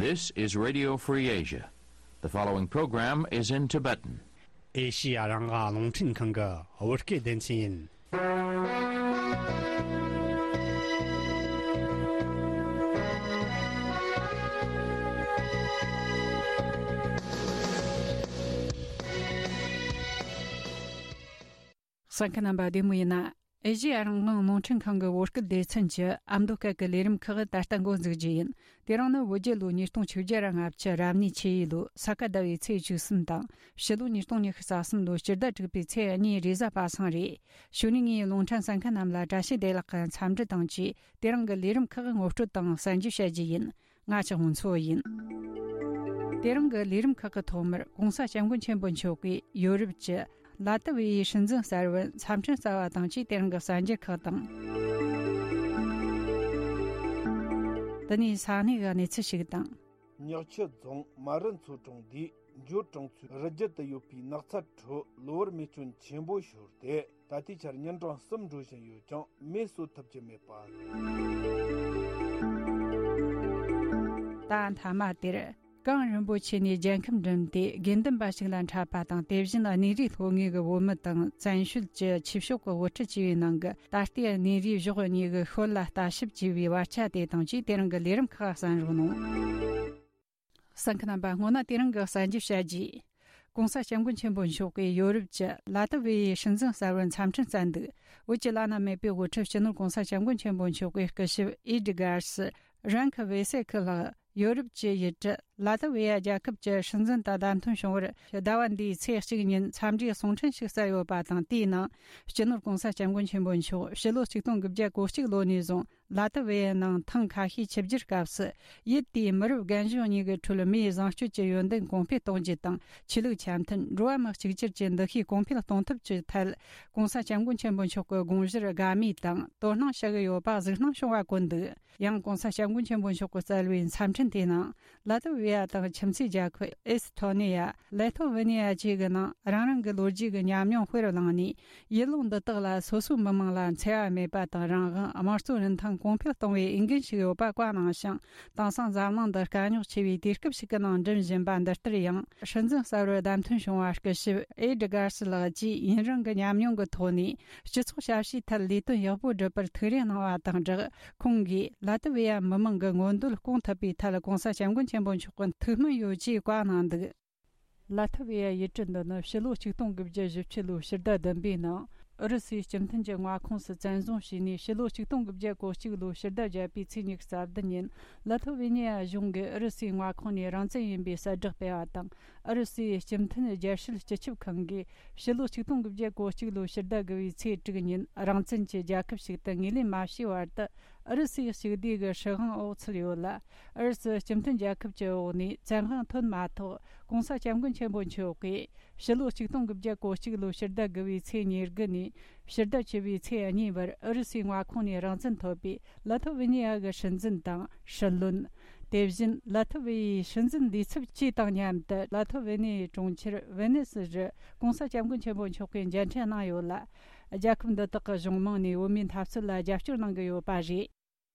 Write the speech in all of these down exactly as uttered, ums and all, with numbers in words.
This is Radio Free Asia. The following program is in Tibetan. ཨེ་ཤི་ཡ་རང་དབང་རླུང་འཕྲིན་ཁང་གི་བོད་སྐད་སྡེ་ཚན་ཡིན། གསན་མཁན་རྣམ་པ་བདེ་མོ་ཡིན་ན། ཨེ་ཤི་ཡ་རང་དབང་རླུང་འཕྲིན་ཁང་གི་བོད་སྐད་སྡེ་ཚན་གྱི་ཨ་མདོ་སྐད་ཀྱི་ལས་རིམ་ཁག་ད་ལྟ་འགོ་འཛུགས་རྒྱུ་ཡིན། དེ་རིང་ནི་བོད་རྒྱལ་ལོ་ཉིས་སྟོང་ཆིག་བརྒྱ་ར་ལྔ་བཅུ་རབ་གནས་ཆུ་ཡོས་ལོའི་ས་ག་ཟླ་བའི་ཚེས་བཅུ་གསུམ་དང་། ཕྱི་ལོ་ཉིས་སྟོང་ཉི་ཤུ་རྩ་གསུམ་ལོའི་སྤྱི་ཟླ་དྲུག་པའི་ཚེས་གཉིས་རེས་གཟའ་པ་སངས་རེད། གཞུག་ནས་ངས་རླུང་འཕྲིན་གསན་མཁན་རྣམས་ལ་བཀྲ་ཤིས་བདེ་ལེགས་ཀྱི་འཚམས་འདྲི་དང་བཅས། དེ་རིང་གི་ལས་རིམ་ཁག་ངོ་སྤྲོད་དང་གསན་རྒྱུ་བྱ་རྒྱུ་ཡིན། ང་ཅག་མུན་ཚོ་ཡིན། དེ་རིང་གི་ལས་རིམ་ཁག་གི་ཐོག་མར་༸གོང་ས་༸སྐྱབས་མགོན་ཆེན་པོ་མཆོག་གིས་ཡོ་རོབ་ཀྱི་ལ་ཏི་ཝེ་ཡའི་སྲིད་འཛིན་གསར་བར་འཚམས་འཕྲིན་བསྩལ་བ་དང་བཅས། དེ་རིང་གི་གསར་འགྱུར་ཁག་དང་། དེ་ནས་ས་གནས་ཀྱི་གནས་ཚུལ་ཞིག་དང་། ཉག་ཆུ་རྫོང་མ་རི་མཚོ་གྲོང་སྡེའི་འབྱོར་གྲོང་ཚོའི་རི་རྒྱུད་དུ་ཡོད་པའི་ནགས་ཚལ་ཁྲོད་གློ་བུར་མེ་སྐྱོན་ཆེན་པོ་ཤོར་ཏེ། ད་ལྟའི་ཆར་ཉིན་གྲངས་གསུམ་འགྲོ་བཞིན་ཡོད་ཀྱང་མེ་གསོད་ཐུབ་ཀྱི་མེད་པ། ད་མཐའ་མ་དེར། གངས་རིན་པོ་ཆེ་ནས་རྒྱལ་ཁམས་འགྲིམས་ཏེ་དགེ་འདུན་པ་ཞིག་ལ་འཕྲད་པ་དང་། དེ་བཞིན་གནས་རིའི་ལྷོ་ངོས་ཀྱི་བོད་མི་དང་བཙན་བྱོལ་གྱི་ཆོས་ཕྱོགས་ཀྱི་དབུ་ཁྲིད་བཅས་པའི་ནང་གི་ད་ལྟའི་གནས་རིའི་གཞོགས་གཉིས་ཀྱི་ཤུལ་ལ་ལྟ་ཞིབ་བྱས་པའི་བར་ཆ་དེ་དང་བཅས། དེ་རིང་གི་ལས་རིམ་ཁག་གསན་རོགས་གནང་། གསན་མཁན་རྣམ་པ། སྔོན་ན་དེ་རིང་གི་གསར་འགྱུར་བཤད་རྒྱུ། ༸གོང་ས་༸སྐྱབས་མགོན་ཆེན་པོ་མཆོག་གིས་ཡོ་རོབ་ཀྱི་ལ་ཏི་ཝེ་ཡའི་སྲིད་འཛིན་གསར་བར་འཚམས་འཕྲིན་བསྩལ་འདུག། བོད་ཀྱི་བླ་ན་མེད་པའི་དབུ་ཁྲིད་སྤྱི་ནོར་༸གོང་ས་༸སྐྱབས་མགོན་ཆེན་པོ་མཆོག་གི་སྐུ་ཞབས་ཨེ་ཌི་གཱར་སི་རན་ཁི་ཝེ་སེ་ཁི་ལགས་ཡོ་རོབ་ཀྱི་ཡུལ་གྲུ་ལ་ཏི་ཝེ་ཡ་རྒྱལ་ཁབ་ཀྱི་སྲིད་འཛིན་དང་བདམས་ཐོན་བྱུང་བར། ཟླ་བ་འདིའི་ཚེས་གཅིག་ཉིན་འཚམས་འདྲིའི་གསུང་འཕྲིན་ཞིག་བསྩལ་ཡོད་པ་དང་། དེའི་ནང་སྤྱི་ནོར་༸གོང་ས་༸སྐྱབས་མགོན་ཆེན་པོ་མཆོག་ཕྱི་ལོ་ཆིག་སྟོང་དགུ་བརྒྱ་གོ་གཅིག་ལོ་ནས་བཟུང་ལ་ཏི་ཝེ་ཡའི་ནང་ཐེངས་ཁ་ཤས་ཆིབས་བསྒྱུར་སྐབས་སུ། ཡུལ་དེའི་མི་རབས་རྒན་གཞོན་གཉིས་ཀྱི་ཁྲོད་མིའི་བཟང་སྤྱོད་ཀྱི་ཡོན་ཏན་གོང་འཕེལ་གཏོང་རྒྱུ་དང་། ཆོས་ལུགས་འཆམ་མཐུན། འགྲོ་བ་མི་གཅིག་གྱུར་གྱི་འདུ་ཤེས་གོང་འཕེལ་གཏོང་ཐབས་ཀྱི་ཐད། ༸གོང་ས་༸སྐྱབས་མགོན་ཆེན་པོ་མཆོག་གི་དགོངས་གཞིར་དགའ་མོས་དང་དོ་སྣང་བྱ་གི་ཡོད་པ་གཟིགས་སྣང་བྱུང་བ་བཀོད་འདུག། ཡང་༸གོང་ས་༸སྐྱབས་མགོན་ཆེན་པོ་མཆོག་གིས་བསྩལ་བའི་འཚམས་འཕྲིན་དེའི་ནང་། ལ་ཏི་ཝེ་ཡ་དང་ཁྱིམ་མཚེས་རྒྱལ་ཁབ་ཨེ་སི་ཐོ་ནི་ཡ། ལེ་ཐོ་ཝེ་ནི་ཡ་བཅས་ཀྱི་ནང་རང་རང་གི་ལོ་རྒྱུས་ཀྱི་ཉམས་མྱོང་དཔེར་བླངས་ནས། ཡུལ་ལུང་འདི་དག་ལ་སོ་སོའི་མི་དམངས་ལ་འཚེ་བ་མེད་པ་དང་། རང་དབང་། དམངས་གཙོའི་རིན་ཐང་གོང་འཕེལ་གཏོང་བའི་འོས་འགན་ཞིག་ཡོད་པ་བཀའ་གནང་ཞིང་། དེང་སང་འཛམ་གླིང་འདི་དཀའ་རྙོག་ཆེ་བའི་དུས་སྐབས་ཤིག་གི་ནང་འགྲིམ་བཞིན་པ་འདི་ལྟར། ཡང་སྲིད་འཛིན་གསར་བར་བདམས་ཐོན་བྱུང་བ་སྐུ་ཞབས་ཨེ་ཌི་གཱར་སི་ལགས་ཀྱིས་ཡུན་རིང་གི་ཉམས་མྱོང་གི་ཐོག་ནས། སྤྱི་ཚོགས་ཞབས་ཞུའི་ཐད་ལས་དོན་ཡག་པོ་སྒྲུབ་པར་ཐུགས་རེ་གནང་བ་དང་སྦྲགས། ཁོང་གིས་ལ་ཏི་ཝེ་ཡ་མི་དམངས་ཀྱི་མངོན་འདོད་སྐོང་ཐུབ་པའི་ཐད་༸གོང་ས་༸སྐྱབས་མགོན་ཆེན་པོ་མཆོག་གི་ཐུགས་སྨོན་ཡོད་ཅེས་བཀའ་གནང་འདུག། ལ་ཐི་ཝེ་ཡ་ཡུལ་གྲུ་འདི་ནི་ཕྱི་ལོ་ཆིག་སྟོང་དགུ་བརྒྱ་བཞི་བཅུ་ལོའི་ཕྱི་ཟླ་བདུན་པའི་ནང་ཨུ་རུ་སུའི་སྤྱི་མཐུན་གྱི་མངའ་ཁོངས་སུ་བཙན་བཟུང་བྱས་ནས། ཕྱི་ལོ་ཆིག་སྟོང་དགུ་བརྒྱ་གོ་གཅིག་ལོའི་ཕྱི་ཟླ་བརྒྱད་པའི་ཚེས་ཉི་ཤུ་རྩ་བདུན་ཉིན་ལ་ཐི་ཝེ་ནི་ཡ་གཞུང་གིས་ཨུ་རུ་སུའི་མངའ་ཁོངས་ནས་རང་བཙན་ཡིན་པའི་གསལ་བསྒྲགས་སྤེལ་བ་དང་། ཨུ་རུ་སུའི་སྤྱི་མཐུན་རྒྱལ་སྲིད་སྤྱི་ཁྱབ་ཁང་གིས་ཕྱི་ལོ་ཆིག་སྟོང་དགུ་བརྒྱ་གོ་གཅིག་ལོའི་ཕྱི་ཟླ་དགུ་པའི་ཚེས་དྲུག་ཉིན་རང་བཙན་གྱི་རྒྱལ་ཁབ་ཞིག་ཏུ་ངོས་ལེན་མ་བྱས་བར་དུ། ཨུ་རུ་སུའི་གཅིག་སྡུས་ཀྱི་སྲིད་དབང་འོག་ཚུད་ཡོད་ལ། ཨུ་རུ་སུ་སྤྱི་མཐུན་རྒྱལ་ཁབ་ཀྱི་འོག་ནས་བཙན་དབང་ཐོན་མ་ཐག་༸གོང་ས་༸སྐྱབས་མགོན་ཆེན་པོ་མཆོག་གིས་ཕྱི་ལོ་ཆིག་སྟོང་དགུ་བརྒྱ་གོ་གཅིག་ལོའི་ཕྱི་ཟླ་དགུ་པའི་ཚེས་ཉེར་དགུ་ནས་ཕྱི་ཟླ་བཅུ་པའི་ཚེས་གཉིས་བར་ཨུ་རུ་སུའི་མངའ་ཁོངས་ནས་རང་བཙན་ཐོབ་པའི་ལ་ཐི་ཝེ་ནི་ཡ་གི་སྲིད་འཛིན་དང་སྲིད་བློན། དེ་བཞིན་ལ་ཐི་ཝེ་ཡའི་སྲིད་འཛིན་འདས་ཚབ་བཅས་དང་མཉམ་དུ་ལ་ཐི་ཝེ་ནི་ཡའི་གྲོང་ཁྱེར་ཝེ་ནེ་སི་རུ་༸གོང་ས་༸སྐྱབས་མགོན་ཆེན་པོ་མཆོག་གིས་མཇལ་འཕྲད་གནང་ཡོད་ལ། རྒྱལ་ཁབ་འདི་དག་གི་གཞུང་མང་ནས་བོད་མིའི་འཐབ་རྩོད་ལ་རྒྱབ་སྐྱོར་གནང་གི་ཡོད་པ་རེད།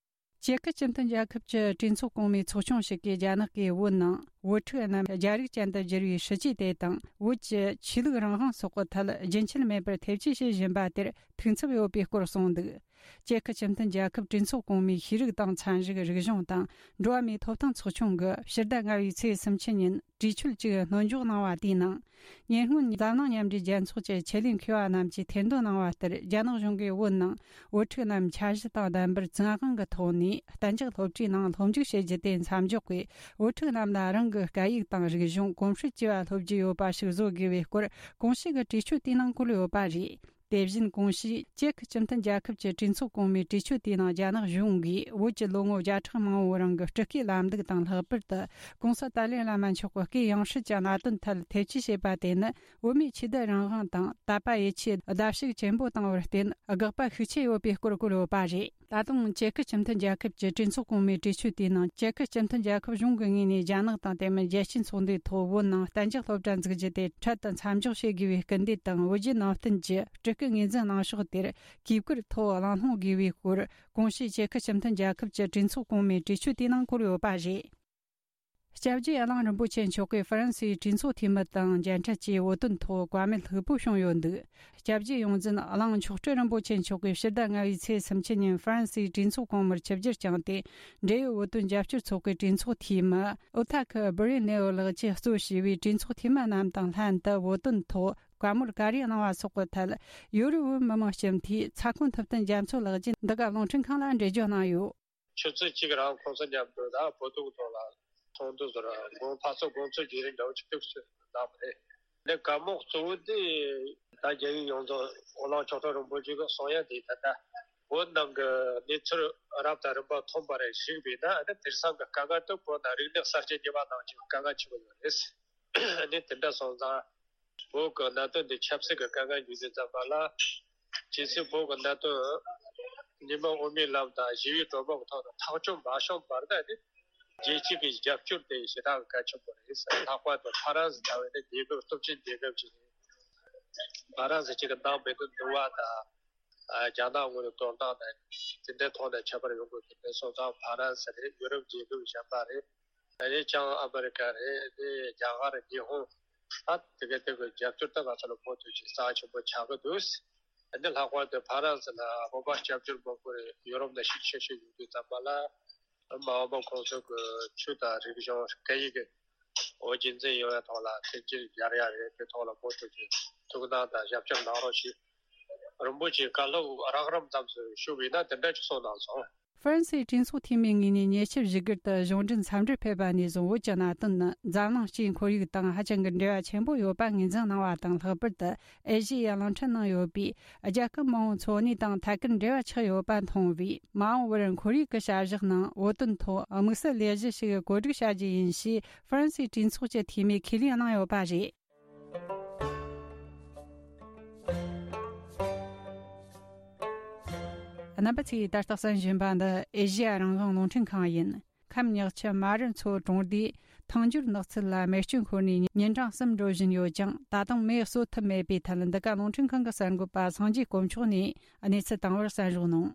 ཅེ་ཁི་སྤྱི་མཐུན་རྒྱལ་ཁབ་ཀྱི་གྲོས་ཚོགས་གོང་མའི་ཚོགས་ཆུང་ཞིག་གིས་རྒྱ་ནག་གིས་བོད་ནང་བོད་ཕྲུག་རྣམས་རྒྱ་རིགས་ཅན་དུ་བསྒྱུར་བའི་སྲིད་ཇུས་དེ་དང་། བོད་ཀྱི་ཆོས་ལུགས་རང་དབང་སོགས་ཀྱི་ཐད་རྒྱུན་ཆད་མེད་པར་ཐེ་བྱུས་བྱེད་བཞིན་པ་དེར་ཐུགས་འཚབ་ཡོད་པའི་སྐོར་གསུངས་འདུག། ཅེ་ཁི་སྤྱི་མཐུན་རྒྱལ་ཁབ་གྲོས་ཚོགས་གོང་མའི་ཤེས་རིག་དང་ཚན་རིག་རིག་གཞུང་དང་འགྲོ་བ་མིའི་ཐོབ་ཐང་ཚོགས་ཆུང་གིས་ཕྱི་ཟླ་ལྔ་པའི་ཚེས་སུམ་ཅུ་ཉིན་གྲོས་ཆོད་ཅིག་སྣོན་འཇོག་གནང་བ་དེའི་ནང་། ཉེ་སྔོན་འཛམ་གླིང་མཉམ་འབྲེལ་རྒྱལ་ཚོགས་ཀྱི་ཆེད་ལས་མཁས་པ་རྣམས་ཀྱིས་ཐེར་འདོན་གནང་བ་ལྟར། རྒྱ་ནག་གཞུང་གིས་བོད་ནང་བོད་ཕྲུག་རྣམས་འཆར་གཞི་དང་ལྡན་པར་བཙན་དབང་གི་ཐོག་ནས་གཏན་འཇགས་སློབ་གྲྭའི་ནང་སློབ་འཇུག་བྱེད་རྒྱུ་དེ་མཚམས་འཇོག་གིས། བོད་ཕྲུག་རྣམས་ལ་རང་གི་སྐད་ཡིག་དང་རིག་གཞུང་གོམས་སྲོལ་བཅས་པ་སློབ་རྒྱུ་ཡོད་པ་ཞིག་བཟོ་དགོས་པའི་སྐོར་གོང་ཞུས་ཀྱི་གྲོས་ཆོད་དེའི་ནང་བཀོད་ཡོད་པ་རེད། དེ་བཞིན་གོང་ཞུས་ཅེ་ཁི་སྤྱི་མཐུན་རྒྱལ་ཁབ་ཀྱི་གྲོས་ཚོགས་གོང་མའི་གྲོས་ཆོད་དེའི་ནང་རྒྱ་ནག་གཞུང་གིས་བོད་ཀྱི་ལོ་ངོ་བརྒྱ་ཕྲག་མང་པོའི་རིང་གི་སྤྲུལ་སྐུའི་ལམ་ལུགས་དང་། ལྷག་པར་དུ་༸གོང་ས་ཏཱ་ལའི་བླ་མ་མཆོག་གི་སྐུའི་ཡང་སྲིད་ཀྱི་གནད་དོན་ཐད་ཐེ་བྱུས་བྱས་པ་དེ་ནི། བོད་མིའི་ཆོས་དད་རང་དབང་དང་དད་པ་ཡིད་ཆེས་བརྡབ་གསིག་ཆེན་པོ་བཏང་བར་བརྟེན། དགག་པ་ཤུགས་ཆེ་ཡོད་པའི་སྐོར་བཀོད་ཡོད་པ་རེད། ད་དུང་ཅེ་ཁི་སྤྱི་མཐུན་རྒྱལ་ཁབ་ཀྱི་གྲོས་ཚོགས་གོང་མའི་གྲོས་ཆོད་དེའི་ནང་། ཅེ་ཁི་སྤྱི་མཐུན་རྒྱལ་ཁབ་གཞུང་གི་ངོས་ནས་རྒྱ་ནག་དང་དེ་མིན་རྒྱལ་སྤྱིའི་ཚོགས་འདུའི་ཐོག་བོད་ནང་གཏན་འཇགས་སློབ་གྲྭ་འཛུགས་རྒྱུ་དེ་འཕྲལ་དུ་མཚམས་འཇོག་བྱེད་དགོས་པའི་སྐུལ་འདེད་དང་། བོད་བརྒྱུད་ནང་བསྟན་གྱི་སྤྲུལ་སྐུ་ངོས་འཛིན་གནང་ཕྱོགས་དེར་གུས་བཀུར་ཐོག་གླེང་སློང་དགོས་པའི་སྐོར་གོང་ཞུས་ཅེ་ཁི་སྤྱི་མཐུན་རྒྱལ་ཁབ་ཀྱི་གྲོས་ཚོགས་གོང་མའི་གྲོས་ཆོད་དེའི་ནང་བཀོད་ཡོད་པ་རེད། སྐྱབས་རྗེ་གླིང་རིན་པོ་ཆེ་མཆོག་གིས་ཧྥ་རན་སིའི་གྲོས་ཚོགས་འཐུས་མི་དང་མཇལ་འཕྲད་ཀྱིས་བོད་དོན་ཐོག་བཀའ་མོལ་ལྷུག་པོ་བྱུང་ཡོད་འདུག་སྐྱབས་རྗེ་ཡོངས་འཛིན་གླིང་མཆོག་སྤྲུལ་རིན་པོ་ཆེ་མཆོག་གིས་ཕྱི་ཟླ་ལྔ་པའི་ཚེས་སུམ་ཅུ་ཉིན་ཧྥ་རན་སིའི་གྲོས་ཚོགས་གོང་མར་ཆིབས་བསྒྱུར་བསྐྱངས་ཏེ། འབྲེལ་ཡོད་བོད་དོན་རྒྱབ་སྐྱོར་ཚོགས་པའི་གྲོས་ཚོགས་འཐུས་མི་ཨོ་ཐ་ཁི་སྦི་རི་ནེ་ཝི་ལགས་ཀྱིས་གཙོ་བྱས་པའི་གྲོས་ཚོགས་འཐུས་མི་རྣམས་དང་ལྷན་དུ་བོད་དོན་ཐོག་བཀའ་མོལ་ག་རེ་གནང་བ་སོགས་ཀྱི་ཐད། ཡོ་རོབ་བོད་མི་མང་སྤྱི་འཐུས་ཚ་ཁོ་ཐུབ་བསྟན་རྒྱ་མཚོ་ལགས་ཀྱིས་འདི་ག་རླུང་འཕྲིན་ཁང་ལ་འགྲེལ་བརྗོད་གནང་ཡོད། ཆུ་ཚོད་གཅིག་རང་ཁོང་ཚོ་མཉམ་དུ་ད་བོད་དོན་ཐོག་ལ་ཚོགས་འདུ་ཟེར་དགོངས་འཐབ་རྩོད་དགོངས་ཚུལ་བརྗེ་རེས་འདྲ་བོ་ཅིག་ཐུགས་སུ་བདམས་པ་རེད། འདི་བཀའ་མོལ་གཙོ་བོ་དེ་ད་རྒྱལ་ཡོངས་རྒྱལ་ཡོངས་རྫོགས་དབུ་བླངས་ཆོག་ཁྲག་རིན་པོ་ཆེ་གི་གསུང་ཡ་དེ་ད་ལྟ་བོད་ནང་གི་གནས་ཚུལ་རབ་དང་རིམ་པ་མཐོང་བ་རེ་ཞིག་བས་ན། ཨ་ནི་དེང་སང་གི་དཀའ་ངལ་དེ་བོད་ནང་རིག་གནས་གསར་བརྗེ་བརྙེས་པ་ནང་བཞིན་དཀའ་ངལ་ཆེན་པོ་ཡོད་རེད། ཨ་ནི་དེ་འདྲ་སོང་ཙང་། བོད་ཀྱི་གནད་དོན་འདི་ཆབ་སྲིད་ཀྱི་དཀའ་ངལ་འགྱུར་དུས་ཙམ་པ་ལ། ཇི་སྲིད་བོད་ཀྱི་གནད་དོན་ཉི་མ་དབུ་མའི་ལམ་དང་ཞི་བའི་གྲོས་མོལ་གྱི་ཐོག་ཏུ་ཐག་གཅོད་མ་བྱུང་བར་ན་ནི། རྒྱལ་སྤྱི་གི་རྒྱབ་སྐྱོར་དེ་ཞེ་དྲག་གི་གལ་ཆེན་པོ་རེད། ལྷག་པར་དུ་ཧྥ་རན་སི་ལྟ་བུའི་ནི་རྒྱལ་ཁབ་སྟོབས་ཆེན་རྒྱལ་ཁབ་ཅིག་རེད། ཧྥ་རན་སི་གཅིག་གི་ནང་མི་དོན་འདུལ་བ་དང་། རྒྱ་ནག་ངོས་ནས་དོ་སྣང་དང་། དེ་འདྲའི་ཐོག་ནས་ཁྱད་པར་ཡོང་དགོས་ཀྱི་མེད། སོང་ཙང་ཧྥ་རན་སི་རེད། ཡུ་རོབ་རྒྱལ་ཁབ་གཞན་པ་རེད། ཨ་ནི་བྱང་ཨ་མི་རི་ཀ་རེད། ཨ་ནི་རྒྱ་གར། ཉི་ཧོང་། ད་དེ་ག་དེ་གི་རྒྱབ་སྐྱོར་ད་ང་ཚོ་ལ་མུ་མཐུད་ཅིག་རྩ་ཆེན་པོ་ཆགས་ཀྱི་འདུག་ཨ་ནི་ལྷག་པར་དུ་ཧྥ་རན་སི་ལ་བོད་པ་སྐྱབས་བཅོལ་མང་པོ་རེད། ཡུ་རོབ་ནས་ཤུགས་ཆེ་ཤོས་ཡོང་དུས་ཙམ་པ་ལ། མ་འོངས་པ་ཁོང་ཚོ་གི་ཆོས་དང་རིག་གཞུང་སྐད་ཡིག་གི་འོ་རྒྱུན་འཛིན་ཡོང་བའི་ཐོག་ལ་མཐུན་རྐྱེན་སྦྱར་ཡ་རེད། དེ་ཐོག་ལ་མུ་མཐུད་ཀྱི་ཐུགས་སྣང་དང་ཞབས་ཞུ་གནང་རོགས་ཞུ། རིན་པོ་ཆེའི་བཀའ་སློབ་རགས་རིམ་ཙམ་ཞུ་བས་ན་དེ་འདྲ་ཅིག་གསུངས་གནང་སོང་། ཧྥ་རན་སིའི་གྲོས་ཚོགས་འཐུས་མི་ངོས་ནས་ཉེ་ཆར་བཞུགས་སྒར་དུ་གཞུང་འབྲེལ་འཚམས་འདྲིར་ཕེབས་པ་ནས་བཟུང་བོད་ཀྱི་གནད་དོན་ནི་འཛམ་གླིང་སྤྱིའི་ཁོར་ཡུག་དང་ཧ་ཅང་གི་འབྲེལ་བ་ཆེན་པོ་ཡོད་པ་ངོས་འཛིན་གནང་བ་དང་། ལྷག་པར་དུ་ཨེ་ཤེ་ཡའི་གླིང་ཕྲན་ནང་ཡོད་པའི་རྒྱལ་ཁབ་མང་བོའི་འཚོ་གནས་དང་ཐད་ཀར་འབྲེལ་བ་ཆགས་ཡོད་པ་མཐོང་བས། མ་འོངས་པར་ཁོར་ཡུག་གི་བྱ་གཞག་ནང་བོད་དོན་ཐོག་དམིགས་བསལ་ལས་གཞི་ཞིག་བཀོད་སྒྲིག་བྱ་རྒྱུ་ཡིན་ཞེས་ཧྥ་རན་སིའི་གྲོས་ཚོགས་ཀྱི་འཐུས་མིས་ཁས་ལེན་གནང་ཡོད་པ་རེད། རྣམ་པ་ཚོས་ད་ལྟ་གསན་བཞིན་པ་འདི་ཨེ་ཤེ་ཡ་རང་དབང་རླུང་འཕྲིན་ཁང་ཡིན། ཁམས་ཉག་ཆུ་རྨ་རུ་མཚོ་གྲོང་སྡེའི་ཐང་འགྱུར་ནགས་ཚལ་ལ་མེ་སྐྱོན་ཤོར་ནས་ཉིན་གྲངས་གསུམ་འགྲོ་བཞིན་ཡོད་ཀྱང་། ད་དུང་མེ་གསོད་ཐུབ་མེད་པའི་ཐད། འདི་ག་རླུང་འཕྲིན་ཁང་གི་གསར་འགོད་པ་སངས་རྒྱས་དཀོན་མཆོག་ནས་གནས་ཚུལ་བཏང་བར་གསན་རོགས་གནང་།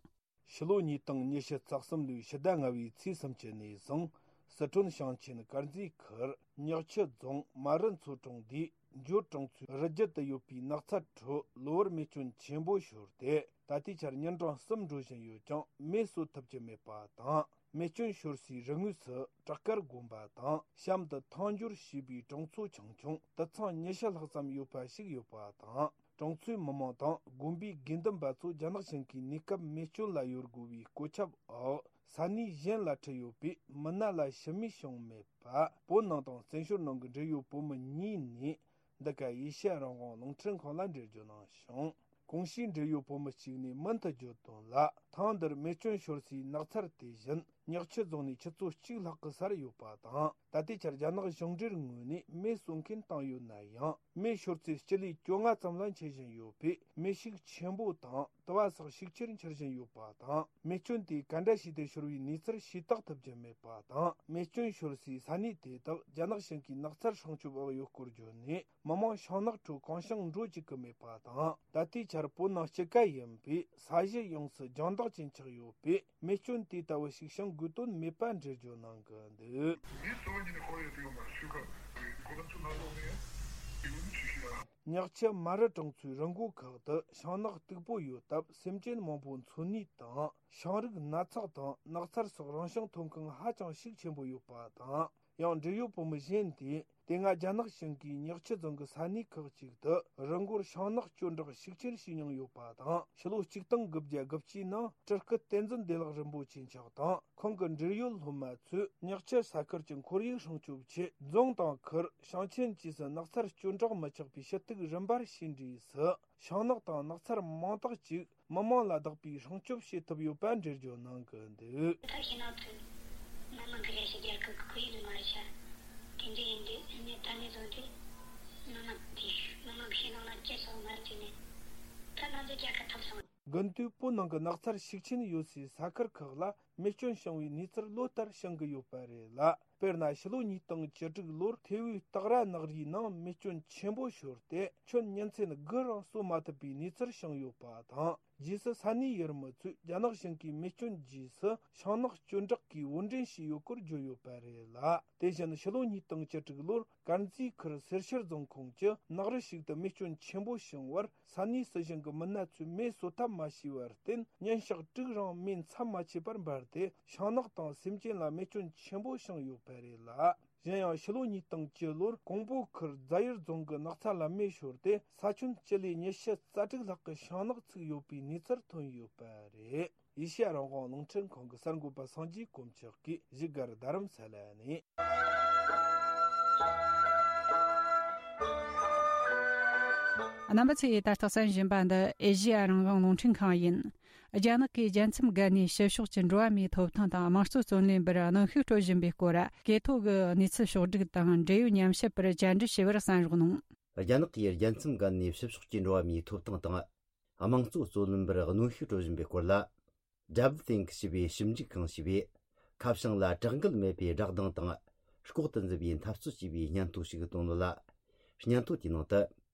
ཕྱི་ལོ་ཉིས་སྟོང་ཉི་ཤུ་རྩ་གསུམ་ལོའི་ཕྱི་ཟླ་ལྔ་པའི་ཚེས་སུམ་ཅུ་ནས་བཟུང་། སི་ཁྲོན་ཞིང་ཆེན་དཀར་མཛེས་ཁུལ་ཉག་ཆུ་རྫོང་རྨ་རུ་མཚོ་གྲོང་སྡེའི་འགྱུར་གྲོང་ཚོའི་རི་རྒྱུད་དུ་ཡོད་པའི་ནགས་ཚལ་ཁྲོད་གློ་བུར་མེ་སྐྱོན་ཆེན་པོ་ཤོར་ཏེ། ད་ལྟའི་ཆར་ཉིན་གྲངས་གསུམ་འགྲོ་བཞིན་ཡོད་ཀྱང་མེ་གསོད་ཐུབ་ཀྱི་མེད་པ་དང་། མེ་སྐྱོན་ཤོར་སའི་རི་ངོས་སུ་བྲག་དཀར་དགོན་པ་དང་གཤམ་དུ་ཐང་འགྱུར་ཞེས་པའི་གྲོང་ཚོ་ཆུང་ཆུང་དུད་ཚང་ཉི་ཤུ་ལྷག་ཙམ་ཡོད་པ་ཞིག་ཡོད་པ་དང་། གྲོང་ཚོའི་མི་མང་དང་དགོན་པའི་དགེ་འདུན་པ་ཚོ་རྒྱ་ནག་ཞིང་གའི་གནས་སྐབས་མེ་སྐྱོན་ལ་ཡོད་དགོས་པའི་གོ་ཁྱབ་འོག་ས་གནས་གཞན་ལ་ཁྲིད་ཡོད་པས། མི་སྣ་ལ་ཤི་རྨས་བྱུང་མེད་པ། བོད་ནང་དང་བཙན་བྱོལ་ནང་གི་འབྲེལ་ཡོད་བོད་མི་གཉིས་ནས་འདི་ག་ཨེ་ཤེ་ཡ་རང་དབང་རླུང་འཕྲིན་ཁང་ལ་འགྲེལ་བརྗོད་གནང་བྱུང་། གོང་ཞུས་འབྲེལ་ཡོད་བོད་མི་གཅིག་ནས་མུ་མཐུད་བརྗོད་དོན་ལ། ཐང་འདིར་མེ་སྐྱོན་ཤོར་སའི་ནགས་ཚལ་དེ་བཞིན་ཉག་ཆུ་རྫོང་ནས་ཆུ་ཚོད་གཅིག་ལྷག་གི་སར་ཡོད་པ་དང་། ད་ལྟའི་ཆར་རྒྱ་ནག་གཞུང་འབྲེལ་ངོས་ནས་མེ་གསོད་མཁན་བཏང་ཡོད་ན་ཡང་། མེ་ཤོར་ཚེ་སྤྱི་ལེ་བཅོ་ལྔ་ཙམ་ལ་མཆེད་བཞིན་ཡོད་པས། མེ་ཤུགས་ཆེན་པོ་དང་དུ་བ་སོགས་ཤུགས་ཆེར་འཕྱུར་བཞིན་ཡོད་པ་དང་། མེ་སྐྱོན་དེ་ག་འདྲ་བྱས་ཏེ་ཤོར་བའི་གནས་ཚུལ་ཤེས་རྟོགས་ཐུབ་ཀྱི་མེད་པ་དང་། མེ་སྐྱོན་ཤོར་སའི་ས་གནས་དེ་དག་རྒྱ་ནག་ཞིང་གའི་ནགས་ཚལ་སྲུང་སྐྱོབ་འོག་ཡོད་སྐོར་བརྗོད་ནས། མི་མང་ཤིང་ནགས་ཁྲོད་གང་བྱུང་འགྲོ་བཅུག་གི་མེད་པ་དང་། ད་ལྟའི་ཆར་བོད་ནང་སྤྱི་ཁ་ཡིན་པས་ས་གཞི་ཡོངས་སུ་ལྗང་མདོག་ཅན་ཆགས་ཡོད་པས། མེ་སྐྱོན་དེ་ལྟ་བུ་ཞིག་བྱུང་དགོས་དོན་མེད་པ་འགྲེལ་བརྗོད་གནང་གི་འདུག། ཉག་ཆུ་རྨ་རུ་གྲོང་ཚོའི་རི་མགོ་ཁག་ཏུ་ཤིང་ནགས་སྟུག་པོ་ཡོད་སྟབས། སེམས་ཅན་མང་པོ་འཚོ་གནས་དང་། ཤིང་རིགས་ནགས་ཚགས་དང་ནགས་ཚལ་སོགས་རང་བྱུང་ཐོན་ཁུངས་ཧ་ཅང་ཤུགས་ཆེན་པོ་ཡོད་པ་དང་། ཡང་འབྲེལ་ཡོད་བོད་མི་གཞན་དེས། དེ་སྔ་རྒྱ་ནག་ཞིང་གའི་ཉག་ཆུ་རྫོང་གི་ས་གནས་ཁག་ཅིག་ཏུ་རི་མགོར་ཤིང་ནགས་སྐྱོན་བྲག་ཤུགས་ཆེར་བྱས་མྱོང་ཡོད་པ་དང་། ཕྱི་ལོ་གཅིག་སྟོང་དགུ་བརྒྱ་དགུ་བཅུའི་ནང་སྤྲུལ་སྐུ་བསྟན་འཛིན་བདེ་ལེགས་རིན་པོ་ཆེ་མཆོག་དང་ཁོང་གི་འབྲེལ་ཡོད་སློབ་མ་ཚོས་ཉག་ཆུ་ས་ཁུལ་གྱི་ཁོར་ཡུག་སྲུང་སྐྱོབ་ཆེད། རྫོང་དང་ཁུལ། ཞིང་ཆེན་བཅས་སུ་ནགས་ཚལ་སྐྱོན་བྲག་མི་ཆགས་པའི་ཞུ་གཏུག་རིམ་པར་ཕྱིན་འབྲས་སུ། ཤིང་ནགས་དང་ནགས་ཚལ་མང་དག་ཅིག་མི་མང་ལ་བདག་པོས་སྲུང་སྐྱོབ་བྱེད་ཐུབ་ཡོད་པ་འགྲེལ་བརྗོད་གནང་གི་འདུག། ད་ཤིང་ནགས་ཚོས་མི་མང་གི་རེ་ཞིག་རྒྱལ་ཁབ་ཀྱི་ཁོར་ཡུག་ནི་མ་རེད་ཤག། དེ་འདྲ་ཡིན་དུས་ཨ་ནི་ད་ནས་བཟུང་སྟེ་མི་མང་གིས་མི་མང་གི་ཤིང་ནགས་ལ་ཅི་སོགས་མ་བརྩིས་ནས་ད་ང་ཚོའི་རྒྱལ་ཁབ་ཐོབ་སོང་། དགུན་དུས་བོད་ནང་གི་ནགས་ཚལ་ཤུགས་ཆེན་ཡོད་སའི་ས་ཁུལ་ཁག་ལ་ རྨས་སྐྱོན་བྱུང་བའི་གནས་ཚུལ་ལོ་ལྟར་བྱུང་གི་ཡོད་པ་རེད་ལ། དཔེར་ན་ཕྱི་ལོ་ཉིས་སྟོང་བཅུ་དྲུག་ལོར་ཐེ་བོའི་སྟག་ར་ནགས་རིའི་ནང་རྨས་སྐྱོན་ཆེན་པོ་ཤོར་ཏེ་ཁྱོན་ཉིན་མཚན་དགུ་རིང་གསོ་མ་ཐུབ་པའི་གནས་ཚུལ་བྱུང་ཡོད་པ་དང་། རྗེས་སུ་ས་གནས་ཡུལ་མི་ཚོས་རྒྱ་ནག་གཞུང་གིས་རྨས་སྐྱོན་རྗེས་སུ་ཤིང་ནགས་གཅོད་འབྲེག་གིས་དབོར་འདྲེན་བྱས་ཡོད་སྐོར་བརྗོད་ཡོད་པ་རེད་ལ། དེ་བཞིན་ཕྱི་ལོ་ཉིས་སྟོང་བཅུ་དྲུག་ལོར་དཀར་མཛེས་ཁུལ་སེར་ཤུལ་རྫོང་ཁོངས་ཀྱི་ནགས་རི་ཞིག་ཏུ་རྨས་སྐྱོན་ཆེན་པོ་བྱུང་བར། ས་གནས་སྲིད་གཞུང་གི་མི་སྣ་ཚོས་མེ་གསོ་ཐབས་མ་བྱས་པར་བརྟེན། ཉིན་ཞག་དྲུག་རིང་མེ་མཚམས་མ་ཆད་པར་འབར་ཏེ། ཤིང་ནགས་དང་སེམས་ཅན་ལ་རྨས་སྐྱོན་ཆེན་པོ་བྱུང་ཡོད་པ་རེད་ལ། གཞན་ཡང་ཕྱི་ལོ་ཉིས་སྟོང་བཅུ་ལོར་ཀོང་པོ་ཁུལ་རྫ་ཡུལ་རྫོང་གི་ནགས་ཚལ་ལ་མེ་ཤོར་ཏེ། ས་ཁྱོན་སྤྱི་ལེ་ཉི་ཤུ་རྩ་དྲུག་ལྷག་གི་ཤིང་ནགས་ཚུགས་ཡོད་པའི་གནས་ཚུལ་ཐོན་ཡོད་པ་རེད། ཨེ་ཤེ་ཡ་རང་དབང་རླུང་འཕྲིན་ཁང་གི་གསར་འགོད་པ་སངས་རྒྱས་དཀོན་མཆོག་གིས་བཞུགས་སྒར་རྡ་རམ་ས་ལ་ནས། རྣམ་པ་ཚོས་ད་ལྟ་གསན་བཞིན་པ་འདི་ཨེ་ཤེ་ཡ་རང་དབང་རླུང་འཕྲིན་ཁང་ཡིན། རྒྱ་ནག་གིས་རྒྱལ་མཚམས་བརྒལ་ནས་ཕྱི་ཕྱོགས་ཀྱི་འགྲོ་བ་མིའི་ཐོབ་ཐང་དང་དམངས་གཙོ་རྩོད་ལེན་པར་གནོན་ཤུགས་སྤྲོད་བཞིན་པའི་སྐོར། གོ་ཐོས་ཀྱི་གནས་ཚུལ་ཕྱོགས་བསྒྲིགས་དང་འབྲེལ་ཡོད་ཉམས་ཞིབ་པར་བཅར་འདྲི་ཞུ་བར་གསན་རོགས་གནང་། རྒྱ་ནག་གིས་རྒྱལ་མཚམས་བརྒལ་ནས་ཕྱི་ཕྱོགས་ཀྱི་འགྲོ་བ་མིའི་ཐོབ་ཐང་དང་། དམངས་གཙོ་རྩོད་ལེན་པར་གནོན་ཤུགས་སྤྲོད་བཞིན་པའི་སྐོར་ལ། Double Think ཞེས་པའི་ཞིབ་འཇུག་ཁང་ཞེས་པས། ཁ་བྱང་ལ་དྲག་འགུལ་མེད་པའི་བསྒྲགས་གདངས་དང་། ལྐོག་ཏུ་འཛུལ་བའི་འཐབ་རྩོད་ཅེས་པའི་སྙན་ཐོ་ཞིག་བཏོན་ཡོད་ལ། སྙན་ཐོ་དེའི་ནང་དུ།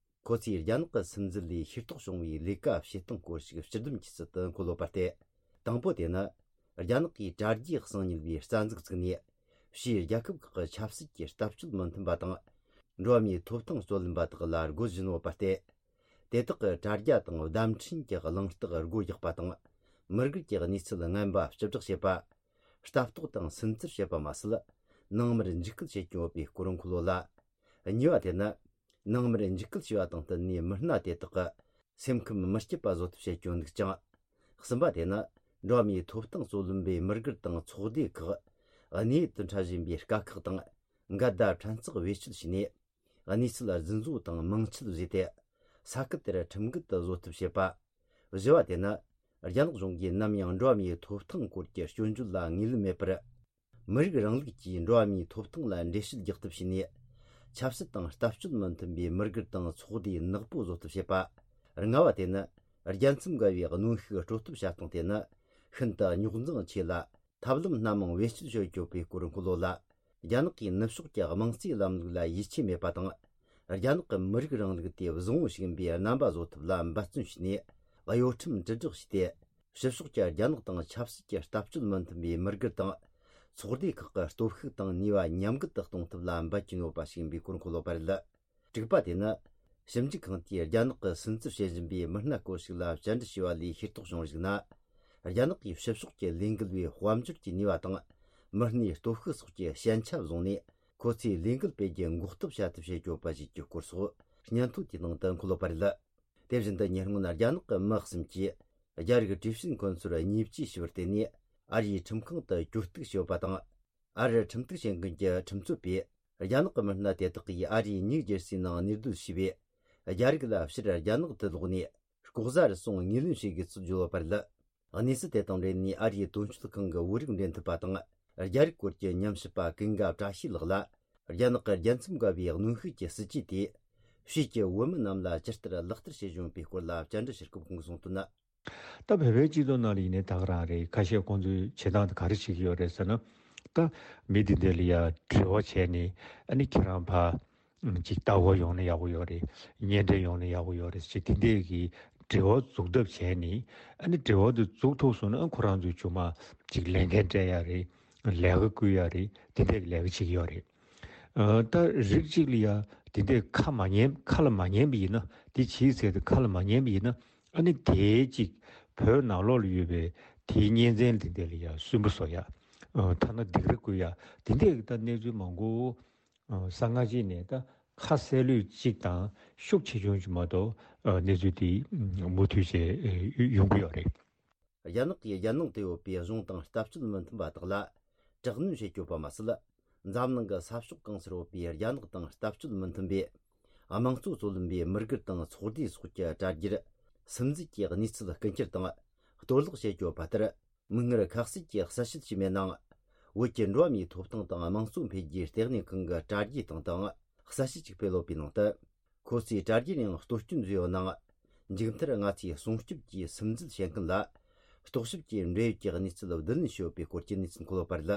ཁོ་ཚོས་རྒྱ་ནག་གི་སིམ་འཛུལ་ལས་ཤེས་རྟོགས་བྱུང་བའི་ལས་ཀ་བྱེད་སྟངས་སྐོར་ཞིག་སྤྱི་སྡོམ་གྱི་ཚུལ་དུ་འཁོད་ཡོད་པ་སྟེ། དང་པོ་དེ་ནི། རྒྱ་ནག་གིས་དྲ་རྒྱའི་གསང་ཉུལ་བའི་རྩ་འཛུགས་བཙུགས་ནས། ཕྱིའི་རྒྱལ་ཁབ་ཁག་གི་ཆབ་སྲིད་ཀྱི་ལྟ་སྤྱོད་མི་མཐུན་པ་དང་། འགྲོ་བ་མིའི་ཐོབ་ཐང་རྩོད་ལེན་པ་དག་ལ་རྒོལ་བཞིན་ཡོད་པ་སྟེ། དེ་དག་གི་དྲ་རྒྱ་དང་བརྡ་འཕྲིན་གྱི་གླེང་སྟེགས་སྒོ་རྒྱག་པ་དང་། མི་དགར་གྱི་གནས་ཚུལ་ངན་པ་བཅུ་བསྒྲགས་བྱེད་པ། ལྟ་རྟོག་དང་སུན་གཙེར་བྱེད་པ་མ་ཟད། ནང་མིར་འཇིགས་སྐུལ་བྱེད་ཀྱིན་ཡོད་པའི་སྐོར་འཁོད་ཡོད་ལ། གཉིས་པ་དེ་ནི། ནང་མིར་འཇིགས་སྐུལ་བྱས་པ་དང་བསྟུན་ནས་མི་སྣ་དེ་དག་གི་སེམས་ཁམས་མི་སྐྱིད་པ་བཟོ་ཐབས་བྱེད་ཀྱི་ཡོད་འདུག་ཅིང་། གསུམ་པ་དེ་ནི། འགྲོ་བ་མིའི་ཐོབ་ཐང་རྩོད་ལེན་པའི་མི་སྒེར་དང་ཚོགས་སྡེ་ཁག་གནས་ཡུལ་དུ་འཁྲབ་བཞིན་པའི་དཀའ་ཁག་དང་འགལ་ཟླ་ཕྲན་ཚེགས་བེད་སྤྱོད་བྱས་ནས། གནས་ཚུལ་རྫུན་བཟོ་དང་མིང་ཆད་བཟོས་ཏེ། ས་ཁུལ་དེར་ཁྲིམས་འགལ་དུ་བཟོ་ཐབས་བྱེད་པ། བཞི་བ་དེ་ནི། རྒྱ་ནག་གཞུང་གིས་ནམ་ཡང་འགྲོ་བ་མིའི་ཐོབ་ཐང་སྐོར་གྱི་སྐྱོན་བརྗོད་ལ་ངོས་ལེན་མེད་པར། མི་རིགས་རིང་ལུགས་ཀྱིས་འགྲོ་བ་མིའི་ཐོབ་ཐང་ལ་འགྲེལ་བཤད་རྒྱག་ཐབས་བྱས་ནས། ཆབ་སྲིད་དང་ལྟ་སྤྱོད་མི་མཐུན་པའི་མི་སྒེར་དང་ཚོགས་སྡེ་ནག་པོ་བཟོ་ཐབས་བྱེད་པ། ལྔ་བ་དེ་ནི། རྒྱལ་མཚམས་བརྒལ་བའི་གནོན་ཤུགས་སྤྲོད་ཐབས་བྱ་སྟངས་དེ་ནི། ཤིན་ཏུ་རྙོག་འཛིང་ཆེ་ལ། ཐབས་ལམ་སྣ་མང་བེད་སྤྱོད་བྱེད་ཀྱི་ཡོད་པའི་སྐོར་འཁོད་ཡོད་ལ། རྒྱ་ནག་གིས་ནུབ་ཕྱོགས་ཀྱི་དམངས་གཙོའི་ལམ་ལུགས་ལ་ཡིད་ཆེས་མེད་པ་དང་། རྒྱ་ནག་གི་མི་རིགས་རིང་ལུགས་དེ་བཟང་བོ་ཞིག་ཡིན་པའི་རྣམ་པ་བཟོ་ཐབས་ལ་འབད་བརྩོན་བྱས་ནས། གཡོ་ཁྲམ་དྲིལ་བསྒྲགས་བྱས་ཏེ། ཕྱི་ཕྱོགས་ཀྱི་རྒྱ་ནག་དང་ཆབ་སྲིད་ཀྱི་ལྟ་སྤྱོད་མི་མཐུན་པའི་མི་སྒེར་དང་། ཚོགས་སྡེ་ཁག་གི་སྟོབས་ཤུགས་དང་ནུས་པ་ཉམས་རྒུད་དུ་གཏོང་ཐབས་ལ་འབད་ཀྱིན་ཡོད་པ་ཞིག་ཡིན་པའི་སྐོར་འཁོད་ཡོད་པ་རེད། དྲུག་པ་དེ་ནི། ཞིབ་འཇུག་ཁང་དེས་རྒྱ་ནག་གིས་སུན་གཙེར་བྱེད་བཞིན་པའི་མི་སྣ་སྐོར་ཞིག་ལ་བཅར་འདྲི་བྱས་པ་ལས་ཤེས་རྟོགས་བྱུང་བར་གཞིགས་ན། རྒྱ་ནག་གིས་ཕྱི་ཕྱོགས་ཀྱི་ལས་འགུལ་བའི་དཔལ་འབྱོར་གྱི་ནུས་པ་དང་། མི་སྣའི་སྟོབས་ཤུགས་སོགས་ཀྱི་ཞན་ཆ་བཟུང་ནས། ཁོ་ཚོས་ལས་འགུལ་སྤེལ་རྒྱུ་འགོག་ཐབས་བྱ་ཐབས་བྱེད་ཀྱི་ཡོད་པ་ཞིག་གི་སྐོར་སོགས་སྙན་ཐོ་དེའི་ནང་དུ་འཁོད་ཡོད་པ་རེད། དེ་བཞིན་དུ་ཉེ་སྔོན་རྒྱ་ནག་གི་མི་གསུམ་གྱིས། རྒྱ་རིགས་གྲོས་བྱེད་འཁོན་ཚོར་བརྙས་བཅོས་བྱས་པར་བརྟེན་ནས། ཨ་རིའི་ཁྲིམས་ཁང་དུ་གྱོད་གཏུག་བྱས་ཡོད་པ་དང་། ཨ་རིར་ཁྲིམས་གཏུག་བྱེད་མཁན་གྱི་ཁྲིམས་རྩོད་པས། རྒྱ་ནག་གི་མི་སྣ་དེ་དག་གིས་ཨ་རིའི་ཉིའུ་ཇེར་སིའི་ནང་གནས་སྡོད་བྱས་པས། རྒྱ་རིགས་ལ་ཕྱིར་རྒྱ་ནག་ཏུ་ལོག་ནས། ལྐོག་ཟ་རུལ་སུངས་ངོས་ལེན་བྱེད་དགོས་ཚུལ་བརྗོད་ཡོད་པ་རེད། གནས་ཚུལ་དེ་དང་འབྲེལ་ནས་ཨ་རིའི་དོན་གཅོད་ཁང་གི་བོད་རིགས་འབྲེལ་མཐུད་པ་དང་། རྒྱ་རིགས་སྐོར་གྱི་ཉམས་ཞིབ་པ་ཀུན་དགའ་བཀྲ་ཤིས་ལགས་ལ། རྒྱ་ནག་གི་རྒྱལ་མཚམས་བརྒལ་བའི་གནོན་ཤུགས་ཀྱི་སྲིད་ཇུས་དེ། ཕྱིས་ཀྱི་བོད་མི་རྣམས་ལ་ཇི་ལྟར་ལག་བསྟར་བྱེད་བཞིན་ཡོད་པའི་སྐོར་ལ་བཅར་འདྲི་ཞུ་སྐབས་ཁོང་གིས་གསུངས་དོན་ནི། ད་བོད་པའི་སྤྱི་ཚོགས་ནང་ལ་ཡིན་ནའི་ད་ག་རང་རེད། ཁ་ཤས་ཁོང་ཚོས་བྱེད་སྟངས་དེ་ག་རེ་བྱེད་ཀྱི་ཡོད་རེད་ཟེར་ན། ད་མི་དེ་འདྲ་ལ་ཡ་འབྲེལ་བ་བྱས་ནས། ཨ་ནི་ཁྱེད་རང་ཕར་ཅིག་ལྟ་སྐོར་ཡོང་ན་ཡག་པོ་ཡོད་རེད། གཉེན་འཕྲད་ཡོང་ན་ཡག་པོ་ཡོད་རེད་ཅེས་དེ་འདྲས་ཀྱི་འབྲེལ་བ་འཛུགས་ཐབས་བྱས་ནས། ཨ་ནི་འབྲེལ་བ་དེ་འཛུགས་ཐུབ་སོང་ན། ཨ་ཁོ་རང་ཚོས་ཅུང་མ་ཅིག་ལས་འགན་སྤྲད་ཡ་རེད། ལས་ཀ་བསྐུལ་ཡ་རེད། དེ་འདྲས་ཀྱི་ལས་ཀ་བྱེད་ཀྱི་ཡོད་རེད། ཨ་ད་རིགས་གཅིག་ལ་ཡ་དེ་འདྲས་ཁ་མ་ཉན། ཁ་ལ་མ་ཉན་པ་ཡིན་ན། དེ་བྱེད་ཟེར་དེ་ཁ་ལ་མ་ཉན་པ་ཡིན་ན། ཨ་ནི་དེའི་གཅིག་བོད་ནང་ལོགས་ལ་ཡོད་པའི་དེའི་གཉེན་ཚན་དེ་འདྲས་ལ་ཡ་སུན་པོ་བཟོ་ཡ། ཨ་ཐ་ན་སྡིགས་ར་བསྐུལ་ཡ། དེ་འདྲས་ཀྱི་ད་གནས་ཚུལ་མང་པོ། ཨ་གསང་སྔགས་ཅིག་ནས་ད་ཁ་གསལ་ལོས་གཅིག་དང་ཤུགས་ཆེ་ཆུང་ཅིག་མ་གཏོགས། ཨ་གནས་ཚུལ་དེ་མུ་མཐུད་བྱས་ཡོང་གི་ཡོད་རེད། རྒྱ་ནག་གིས་རྒྱལ་ནང་དུ་ཡོད་པའི་གཞུང་དང་ལྟ་སྤྱོད་མི་མཐུན་པ་དག་ལ་དྲག་གནོན་བྱེད་ཀྱི་ཡོད་པ་མ་ཟད། འཛམ་གླིང་གི་ས་ཕྱོགས་གང་སར་ཡོད་པའི་རྒྱ་ནག་དང་ལྟ་སྤྱོད་མི་མཐུན་པའི་དམངས་གཙོ་རྩོད་ལེན་པའི་མི་སྒེར་དང་ཚོགས་སྡེ་སོགས་ཀྱི་དྲ་རྒྱར་སིམ་འཛུལ་གྱི་གནས་ཚུལ་རྐུ་འཁྱེར་དང་གཏོར་བརླག་བྱེད་ཀྱི་ཡོད་པ་ལྟར། མིག་སྔར་ཁ་གསལ་གྱི་གསལ་བཤད་ཞིག་མེད་ནའང་། བོད་ཀྱི་འགྲོ་བ་མིའི་ཐོབ་ཐང་དང་དམངས་གཙོ་འཕེལ་རྒྱས་ལྟེ་གནས་ཁང་གི་དྲ་རྒྱའི་སྟེང་དུའང་གསལ་བཤད་ཅིག་སྤེལ་ཡོད་པའི་ནང་དུ། ཁོ་ཚོས་དྲ་རྒྱའི་ནང་གཏོར་སྐྱོན་བཟོས་ཡོད་ནའང་། མཇུག་མཐར་ང་ཚོས་སྲུང་སྐྱོབ་ཀྱིས་སིམ་འཛུལ་བྱེད་མཁན་ལ་ རྟོག་ཞིབ་ཀྱི་འབྲེལ་ཡོད་ཀྱི་གནས་ཚུལ་བསྡུ་ལེན་ཞུས་ཡོད་པའི་སྐོར་གྱི་གནས་ཚུལ་འཁོད་ཡོད་པ་རེད།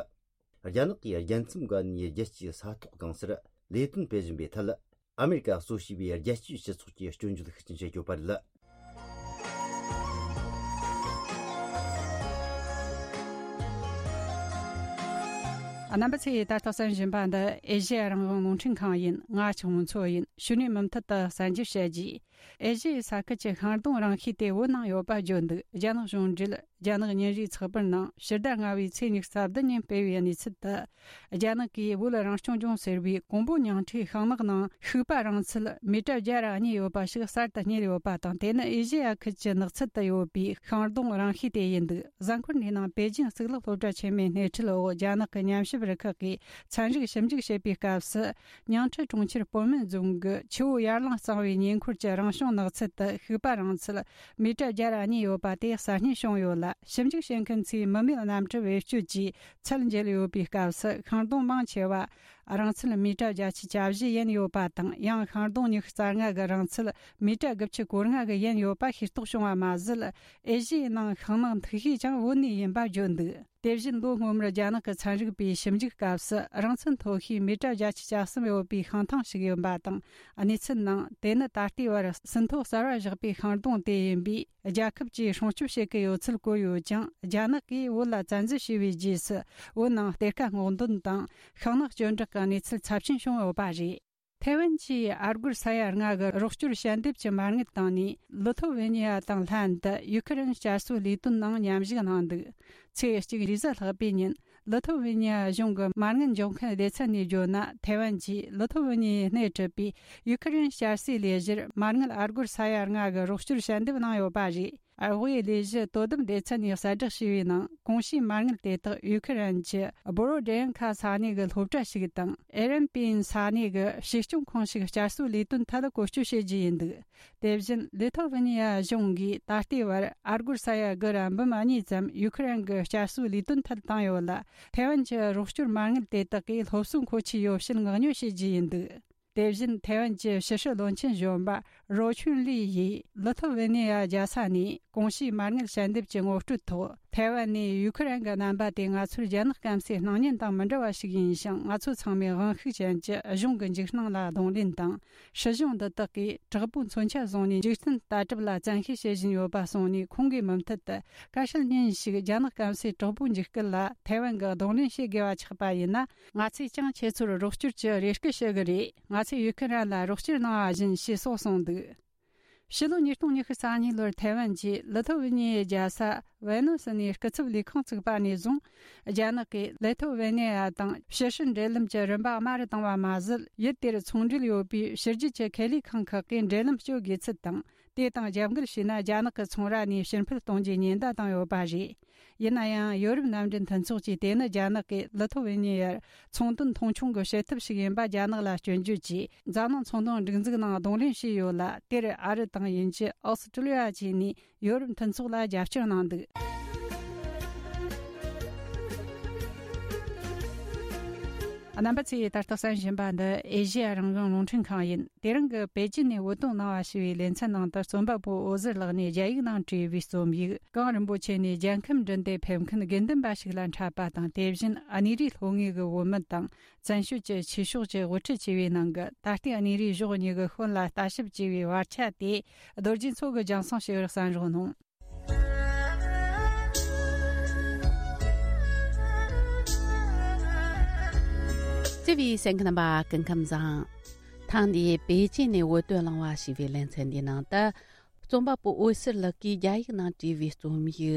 རྒྱ་ནག་གིས་རྒྱལ་མཚམས་བརྒལ་ནས་རྒྱལ་སྤྱིའི་ས་ཐོག་གང་སར་ལས་དོན་སྤེལ་བཞིན་པའི་ཐད། ཨ་མེ་རི་ཀ་གཙོ་བྱས་པའི་རྒྱལ་སྤྱིའི་སྤྱི་ཚོགས་ཀྱིས་སྐྱོན་བརྗོད་ཤུགས་ཆེན་བྱེད་ཀྱི་ཡོད་པ་རེད། རྣམ་པ་ཚོས་ད་ལྟ་གསན་བཞིན་པ་འདི་ཨེ་ཤེ་ཡ་རང་དབང་རླུང་འཕྲིན་ཁང་ཡིན། ང་ཆུང་མཚོ་ཡིན། ཕྱི་ནས་མུ་མཐུད་དུ་གསན་རྒྱུ་བྱེད་རྒྱུ། ཨེ་ཤེ་ཡའི་ས་ཁུལ་གྱི་ཤིང་སྡོང་རིང་ཤོས་དེ་བོད་ནང་ཡོད་པ་བརྗོད་འདུག་རྒྱ་ནག་གཞུང་འབྲེལ་རྒྱ་ནག་ཉིན་རེའི་ཚགས་པར་ནང་ཕྱི་ཟླ་ལྔ་པའི་ཚེས་ཉི་ཤུ་རྩ་བདུན་ཉིན་སྤེལ་བའི་གནས་ཚུལ་དུ། རྒྱ་ནག་གིས་བོད་རང་སྐྱོང་ལྗོངས་ཟེར་བའི་ཀོང་པོ་ཉིང་ཁྲིའི་ཤིང་ནགས་ནང་ཤིག་པ་རིང་ཚད་མི་ཊར་བརྒྱ་དང་གཉིས་ཡོད་པ་ཞིག་གསར་དུ་རྙེད་ཡོད་པ་དང་། དེ་ནི་ཨེ་ཤེ་ཡ་ཁུལ་གྱི་ནགས་ཚལ་དུ་ཡོད་པའི་ཤིང་སྡོང་རིང་ཤོས་དེ་ཡིན་འདུག་གཟའ་འཁོར་འདིའི་ནང་པེ་ཅིང་གཙུག་ལག་སློབ་གྲྭ་ཆེན་མོའི་སྣེ་ཁྲིད་འོག་རྒྱ་ནག་གི་ཉམས་ཞིབ་རུ་ཁག་གིས་ཚན་རིག་ཞིབ་འཇུག་བྱེད་པའི་སྐབས་སུ། ཉིང་ཁྲི་གྲོང་ཁྱེར་སྤོ་སྨད་རྫོང་གི་ཆུ་བོ་ཡར་ལངས་གཙང་བོའི་ཉེ་འཁོར་གྱི་རང་བྱུང་ནགས་ཚལ་དུ་ཤིག་པ་རིང་ཚད་མི་ཊར་བརྒྱ་དང་གཉིས་ཡོད་པ་དེ་གསར་རྙེད་བྱུང་ཡོད་ལ། ཞིབ་འཇུག་བྱེད་མཁན་ཚོས་མི་མེད་གནམ་གྲུ་བེད་སྤྱོད་ཀྱིས་ཚད་འཇལ་ཡོད་པའི་སྐབས་སུ། ཤིང་སྡོང་མང་ཆེ་བ་རིང་ཚད་མི་ཊར་བརྒྱད་ཅུ་གྱ་བཞི་ཡན་ཡོད་པ་དང་། ཡང་ཤིང་སྡོང་ཉི་ཤུ་རྩ་ལྔ་གི་རིང་ཚད་མི་ཊར་དགུ་བཅུ་གོ་ལྔ་གི་ཡན་ཡོད་པ་ཤེས་རྟོགས་བྱུང་བ་མ་ཟད། ཨེ་ཤི་ཡའི་ནང་ཤིང་ནགས་འཐུ་ཤེས་ཀྱང་བོད་ནས་ཡིན་པ་བརྗོད་འདུག་དེ་བཞིན་ལོ་སྔོན་མར་རྒྱ་ནག་གི་ཚན་རིག་པས་ཞིབ་འཇུག་སྐབས་སུ། རིང་ཚད་མཐོ་ཤོས་མི་ཊར་བརྒྱད་ཅུ་གྱ་གསུམ་ཡོད་པའི་ཤིང་ཐང་ཞིག་ཡོད་པ་དང་། གནས་ཚུལ་ནང་དེ་ནི་ད་ལྟའི་བར་ཟིན་ཐོ་གསར་བ་བཞག་པའི་ཤིང་སྡོང་དེ་ཡིན་པས། རྒྱལ་ཁབ་ཀྱིས་སྲུང་སྐྱོབ་བྱེད་ཀྱི་ཡོད་ཚུལ་བཀོད་ཡོད་ཀྱང་། རྒྱ་ནག་གིས་བོད་ལ་བཙན་འཛུལ་བྱས་པའི་རྗེས་སུ། བོད་ནང་གཏེར་ཁ་སྔོག་འདོན་དང་ཤིང་ནགས་གཅོད་འབྲེག་གི་གནས་ཚུལ་ཚབས་ཆེན་བྱུང་ཡོད་པ་རེད། ཐའེ་ཝན་གྱིས་ཨ་སྒོར་ས་ཡ་ལྔ་གི་རོགས་སྐྱོར་ཞལ་འདེབས་ཀྱི་མ་དངུལ་བཏང་ནས། ལི་ཐོ་ཝེ་ནི་ཡ་དང་ལྷན་དུ་ཡུ་ཁི་རན་བསྐྱར་གསོའི་ལས་དོན་ནང་མཉམ་ཞུགས་གནང་འདུག་ཚེས་གཅིག་རེས་གཟའ་ལྷག་པའི་ཉིན། ལི་ཐོ་ཝེ་ནི་ཡ་གཞུང་གི་མ་དངུལ་འཇོག་མཁན་སྡེ་ཚན་ནས་བརྗོད་ན། ཐའེ་ཝན་གྱིས་ལི་ཐོ་ཝེ་ནི་ཡའི་སྣེ་ཁྲིད་པའི་ཡུ་ཁི་རན་བསྐྱར་གསོའི་ལས་གཞིར་མ་དངུལ་ཨ་སྒོར་ས་ཡ་ལྔ་གི་རོགས་སྐྱོར་ཞལ་འདེབས་གནང་ཡོད་པ་རེད། དབུས་ལས་གཞི་དོ་དམ་སྡེ་ཚན་ནས་གསལ་བསྒྲགས་བྱས་པའི་ནང་། གོང་ཞུས་མ་དངུལ་དེ་དག་ཡུ་ཁི་རན་གྱི་བོ་རོ་ཌེན་ཁ་ས་གནས་ཀྱི་སློབ་གྲྭ་ཞིག་དང་། ཨེ་རན་པིན་ས་གནས་ཀྱི་གཞིས་སྐྱོང་ཁང་ཞིག་བསྐྱར་གསོའི་ལས་དོན་ཐད་བཀོལ་སྤྱོད་བྱེད་རྒྱུ་ཡིན་འདུག་དེ་བཞིན་ལི་ཐོ་ཝེ་ནི་ཡ་གཞུང་གིས་ད་ལྟའི་བར་ཨ་སྒོར་ས་ཡ་དགུ་ར་འབུམ་གཉིས་ཙམ་ཡུ་ཁི་རན་གྱི་བསྐྱར་གསོའི་ལས་དོན་ཐད་བཏང་ཡོད་ལ། ཐའེ་ཝན་གྱི་རོགས་སྐྱོར་མ་དངུལ་དེ་དག་གིས་སློབ་གསོའི་མཁོ་ཆས་ཡོ་བྱད་མངགས་ཉོ་བྱེད་རྒྱུ་ཡིན་འདུག་དེ་བཞིན་ཐའེ་ཝན་གྱི་ཕྱི་སྲིད་བློན་ཆེན་གཞོན་པ་རོ་ཆུན་ལི་ཡིས་ལི་ཐོ་ཝེ་ནེ་ཡ་རྒྱལ་ས་ནས་གོང་ཞུས་མ་དངུལ་ཞལ་འདེབས་ཀྱི་ངོ་སྤྲོད་ཐོག་ཐའེ་ཝན་ནས་ཡུ་ཁི་རན་གྱི་རྣམ་པ་དེ་ང་ཚོར་རྒྱ་ནག་སྐམ་སའི་སྣང་བརྙན་དང་མི་འདྲ་བ་ཞིག་ཡིན་ཞིང་། ང་ཚོ་ཚང་མས་དབང་ཤུགས་ཅན་གྱི་གཞུང་གི་འཇིགས་སྣང་ལ་གདོང་ལེན་དང་། སྲིད་གཞུང་འདི་དག་གིས་དྲག་པོའི་མཚོན་ཆ་བཟུང་ནས་འཇིག་རྟེན་ལྟ་གྲུབ་ལ་བཙན་ཤེད་བྱེད་བཞིན་ཡོད་པ་གསུངས་ནས། ཁོང་གིས་མུ་མཐུད་དུ་བཀའ་ཤག་ཉིན་ཞིག་རྒྱ་ནག་སྐམ་སའི་དྲག་པོའི་འཇིགས་སྐུལ་ལ་ཐའེ་ཝན་གྱིས་གདོང་ལེན་བྱེད་དགོས་པ་ཆགས་པ་ཡིན་ན། ང་ཚོས་ཀྱང་ཁྱེད་ཚོར་རོགས་སྐྱོར་གྱི་རེ་སྐུལ་ཞུ་གི་རེད། ང་ཚོས་ཡུ་ཁི་རན་ལ་རོགས་སྐྱོར་གནང་བ་བཞིན་ཞེས་སོགས་གསུངས་འདུག་ཕྱི་ལོ་ཉིས་སྟོང་ཉི་ཤུ་རྩ་གཉིས་ལོར་ཐའེ་ཝན་གྱིས་ལི་ཐོ་ཝེ་ནི་ཡའི་རྒྱལ་ས་ཝེ་ནོ་སི་ནས་སྐུ་ཚབ་ལས་ཁང་བཙུགས་པ་ནས་བཟུང་། རྒྱ་ནག་གིས་ལི་ཐོ་ཝེ་ནི་ཡ་དང་ཕྱི་སྲིད་འབྲེལ་ལམ་གྱི་རིམ་པ་དམའ་རུ་བཏང་བ་མ་ཟད། ཡུལ་དེར་ཚོང་འབྲེལ་ཡོད་པའི་ཕྱི་རྒྱལ་གྱི་ཁེ་ལས་ཁང་ཁག་གིས་འབྲེལ་ལམ་གཅོད་དགོས་ཚུལ་དང་། དེ་དང་རྒྱབ་འགལ་བྱས་ན། རྒྱ་ནག་གི་ཚོང་ར་ནས་ཕྱིར་འཕུད་གཏོང་རྒྱུའི་ཉེན་བརྡ་བཏང་ཡོད་པ་རེད། ཡིན་ན་ཡང་། ཡོ་རོབ་མནའ་འབྲེལ་མཐུན་ཚོགས་ཀྱིས་དེ་ནི་རྒྱ་ནག་གིས་ལི་ཐོ་ཝེ་ནི་ཡར་ཚོང་དོན་མཐོང་ཆུང་གི་བྱེད་ཐབས་ཤིག་ཡིན་པ་རྒྱ་ནག་ལ་སྐྱོན་བརྗོད་ཀྱིས། འཛམ་གླིང་ཚོང་དོན་སྒྲིག་འཛུགས་ནང་གདོང་ལེན་བྱས་ཡོད་ལ། དེར་ཨ་རི་དང་དབྱིན་ཇི། ཨོ་སི་ཀྲི་ལི་ཡ་བཅས་ནས་ཡོ་རོབ་མཐུན་ཚོགས་ལ་རྒྱབ་སྐྱོར་གནང་འདུག་རྣམ་པ་ཚོས་ད་ལྟ་གསན་བཞིན་པ་འདི་ཨེ་ཤེ་ཡ་རང་དབང་རླུང་འཕྲིན་ཁང་ཡིན། དེ་རིང་གི་པེ་ཅིན་ནས་བོད་དོན་གནང་བ་ཞེས་པའི་ལེ་ཚན་ནང་དུ། རྩོམ་པ་པོ་འོད་ཟེར་ལགས་ནས་རྒྱ་ཡིག་ནང་བྲིས་པའི་རྩོམ་ཡིག་གངས་རིན་པོ་ཆེ་ནས་རྒྱལ་ཁམས་འདྲེན་ཏེ་ཕེབས་མཁན་དགེ་འདུན་པ་ཞིག་ལ་འཕྲད་པ་དང་། དེ་བཞིན་གནས་རིའི་ལྷོ་ངོས་ཀྱི་བོད་མི་དང་བཙན་བྱོལ་གྱི་ཆོས་ཕྱོགས་ཀྱི་དབུ་ཁྲིད་བཅས་པའི་ནང་གི་ད་ལྟའི་གནས་རིགས་གཞོགས་གཉིས་ཀྱི་ཤན་ལ་ལྟ་ཞིབ་བྱས་པའི་བར་ཆ་དེ། རྡོ་རྗེ་མཚོ་གིས་རྒྱང་སྲིང་ཞུས་པར་གསན་རོགས་གནང་། བརྩེ་བའི་གསན་མཁན་རྣམ་པ། སྐུ་ཁམས་བཟང་། ཐེངས་འདིའི་པེ་ཅིན་ནས་བོད་དོན་གླེང་བ་ཞེས་པའི་ལེ་ཚན་འདིའི་ནང་དུ། རྩོམ་པ་པོ་འོད་ཟེར་ལགས་ཀྱིས་རྒྱ་ཡིག་ནང་བྲིས་པའི་རྩོམ་ཡིག་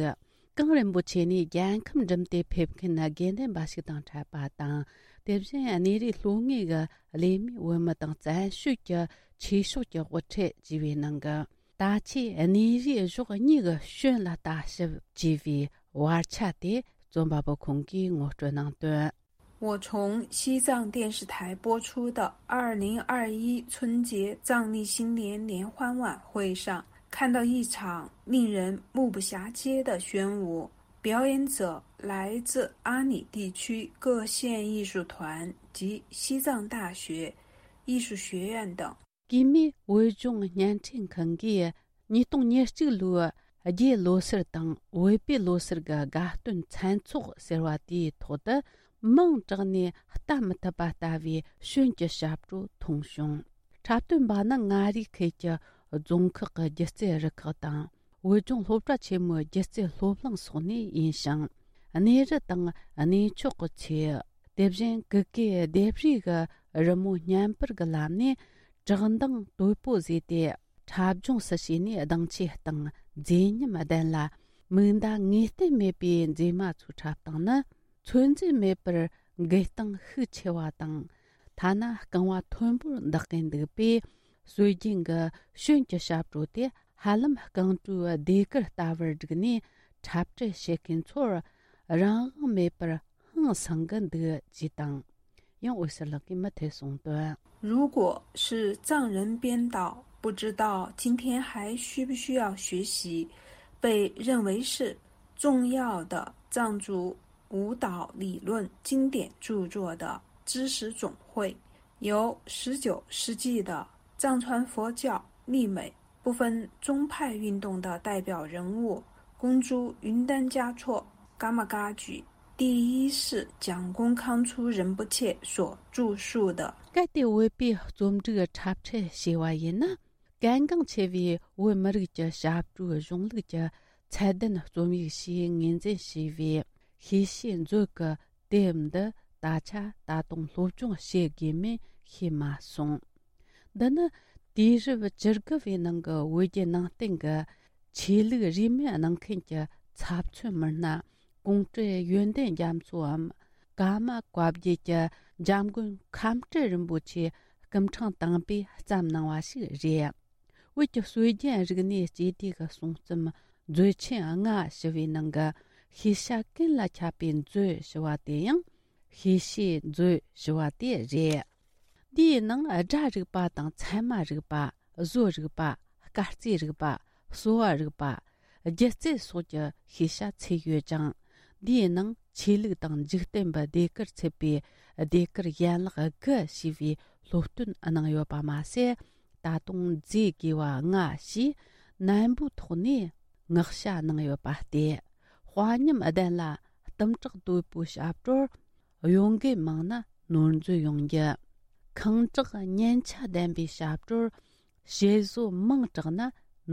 གངས་རིན་པོ་ཆེ་ནས་རྒྱལ་ཁམས་འགྲིམ་སྟེ་ཕེབས་མཁན་དགེ་འདུན་པ་ཞིག་དང་འཕྲད་པ་དང་། དེ་བཞིན་གནས་རིའི་ལྷོ་ངོས་ཀྱི་གླེ་མའི་བོད་མི་དང་བཙན་བྱོལ་གྱི་ཆོས་ཕྱོགས་ཀྱི་དབུ་ཁྲིད་བཅས་པའི་ནང་གི། ད་ཆའི་གནས་རིགས་གཞོགས་གཉིས་ཀྱི་ཤན་ལ་ལྟ་ཞིབ་བྱས་པའི་བར་ཆ་དེ་རྩོམ་པ་པོ་ཁོང་གིས་ངོ་སྤྲོད་གནང་དོན། 我从西藏电视台播出的二零二一春节藏历新年联欢晚会上，看到一场令人目不暇接的炫舞。表演者来自阿里地区各县艺术团及西藏大学艺术学院等。 གུས་མོས་བོད་ལྗོངས་བརྙན་འཕྲིན་ཁང་གིས་ཉིས་སྟོང་ཉེར་གཅིག་ལོའི་ རྒྱའི་ལོ་སར་དང་བོད་པའི་ལོ་སར་གྱི་དགའ་སྟོན་མཚན་ཚོགས་ཟེར་བ་དེའི་ཐོག་ཏུ་མིང་དྲངས་ནས་ལྟ་མི་ཐུབ་པ་ལྟ་བུའི་ཤོན་གྱི་ཞབས་བྲོ་མཐོང་བྱུང་། འཁྲབ་སྟོན་པ་ནི་མངའ་རིས་ཁུལ་གྱི་རྫོང་ཁག་གི་སྒྱུ་རྩལ་རུ་ཁག་དང་། བོད་ལྗོངས་སློབ་གྲྭ་ཆེན་མོའི་སྒྱུ་རྩལ་སློབ་གླིང་སོགས་ནས་ཡིན་ཞིང་། གནས་རི་དང་གནས་མཆོག་གི་ཚེ། དེ་བཞིན་གུ་གེ་ལྡེབས་རིས་ཀྱི་རི་མོ་བརྙན་པར་གྱི་ལམ་ནས་བཀྲག་མདངས་དོད་པོ་བཟོས་ཏེ། འཁྲབ་སྦྱོང་སུ་བྱས་ནས་གདངས་ཆེ་དང་མཛེས་ཉམས་ལྡན་ལ། མིག་མདའ་ངེས་གཏན་མེད་པའི་མཛེས་མ་ཚོའི་འཁྲབ་སྟངས་ནི། ཚོད་འཛིན་མེད་པར་འགུལ་སྟངས་ཤུགས་ཆེ་བ་དང་། ཐ་ན་རྐང་བ་མཐོན་པོར་འདེགས་ཀྱིན་འདུག་པས། སྲོལ་རྒྱུན་གྱི་ཤོན་གྱི་ཞབས་བྲོ་དེ་ཧ་ལམ་རྐང་བྲོའི་ཟློས་གར་ལྟ་བུར་བསྒྲིགས་ནས་འཁྲབ་ཁྲིད་བྱེད་མཁན་ཚོར་རང་དབང་མེད་པར་ཧང་སང་གི་འདུག་ཅེས་དང་། ཡང་འོད་ཟེར་ལགས་ཀྱིས་མུ་མཐུད་གསུངས་དོན། 如果是藏人编导，不知道今天还需不需要学习被认为是重要的藏族舞蹈理论经典著作的知识总会，由十九世纪的藏传佛教立美部分宗派运动的代表人物公诸云丹嘉措 Gammagajje 第一世讲功康初仁波切所著述的。 གལ་ཏེ་བོད་པའི་རྩོམ་སྒྲིག་འཁྲབ་ཁྲིད་བྱས་པ་ཡིན་ན། གལ་འགངས་ཆེ་བའི་བོད་མི་རིགས་ཀྱི་ཞབས་བྲོའི་གཞུང་ལུགས་ཀྱི་ཚད་ལྡན་རྩོམ་ཡིག་ཞེས་ངོས་འཛིན་བྱས་པའི་ཤེས་བྱའི་མཛོད་ཀྱི་དེབ་འདི་ད་ཆ་ད་དུང་སློབ་སྦྱོང་བྱེད་དགོས་མིན་ཤེས་མ་སོང་། འདི་ནི་དུས་རབས་བཅུ་དགུ་བའི་ནང་གི་བོད་བརྒྱུད་ནང་བསྟན་གྱི་ཆོས་ལུགས་རིས་མེད་གནང་མཁན་གྱི་ཚབ་མཚོན་མི་སྣ་ཀོང་སྤྲུལ་ཡོན་ཏན་རྒྱ་མཚོའམ། ཀརྨ་བཀའ་བརྒྱུད་ཀྱི་འཇམ་མགོན་ཁམས་སྤྲུལ་རིན་པོ་ཆེ་སྐུ་ཕྲེང་དང་པོས་བརྩམས་གནང་བ་ཞིག་རེད། བོད་ཀྱི་སྲོལ་རྒྱུན་རིག་གནས་སྤྱི་སྡེ་གི་གསུང་རྩོམ་མཛོད་ཆེན་ལྔ་ཞེས་པའི་ནང་གི་ཤེས་བྱ་ཀུན་ལ་ཁྱབ་པའི་མཛོད་ཞེས་པ་དེ་ཡང་ཤེས་བྱའི་མཛོད་ཞེས་པ་དེ་རེད། འདིའི་ནང་སྒྲ་རིག་པ་དང་ཚད་མ་རིག་པ། བཟོ་རིག་པ། སྐར་རྩིས་རིག་པ། གསོ་བ་རིག་པ། སྒྱུ་རྩལ་སོགས་ཀྱི་ཤེས་བྱ་ཚུད་ཡོད་ཅིང་། འདིའི་ནང་ཆོས་ལུགས་དང་འཇིག་རྟེན་པའི་ཟློས་གར་ཚུད་པའི་ཟློས་གར་ཡན་ལག་དགུ་ཞེས་པའི་སློབ་སྟོན་གནང་ཡོད་པ་མ་ཟད། ད་དུང་མཛེས་དགོས་པ་ལྔ་ཞེས་ནན་པོའི་ཐོག་ནས་བསྔགས་བྱ་གནང་ཡོད་པ་སྟེ། དཔའ་ཉམས་ལྡན་ལ་གཏུམ་དྲག་དོད་པོའི་ཞབས་བྲོར། གཡོ་འགུལ་མང་ན་ནོར་འཛོལ་ཡོང་རྒྱུ། ཁེངས་དྲེགས་སྙན་ཆ་ལྡན་པའི་ཞབས་བྲོར། ཞེ་བཟོ་མང་དྲགས་ན་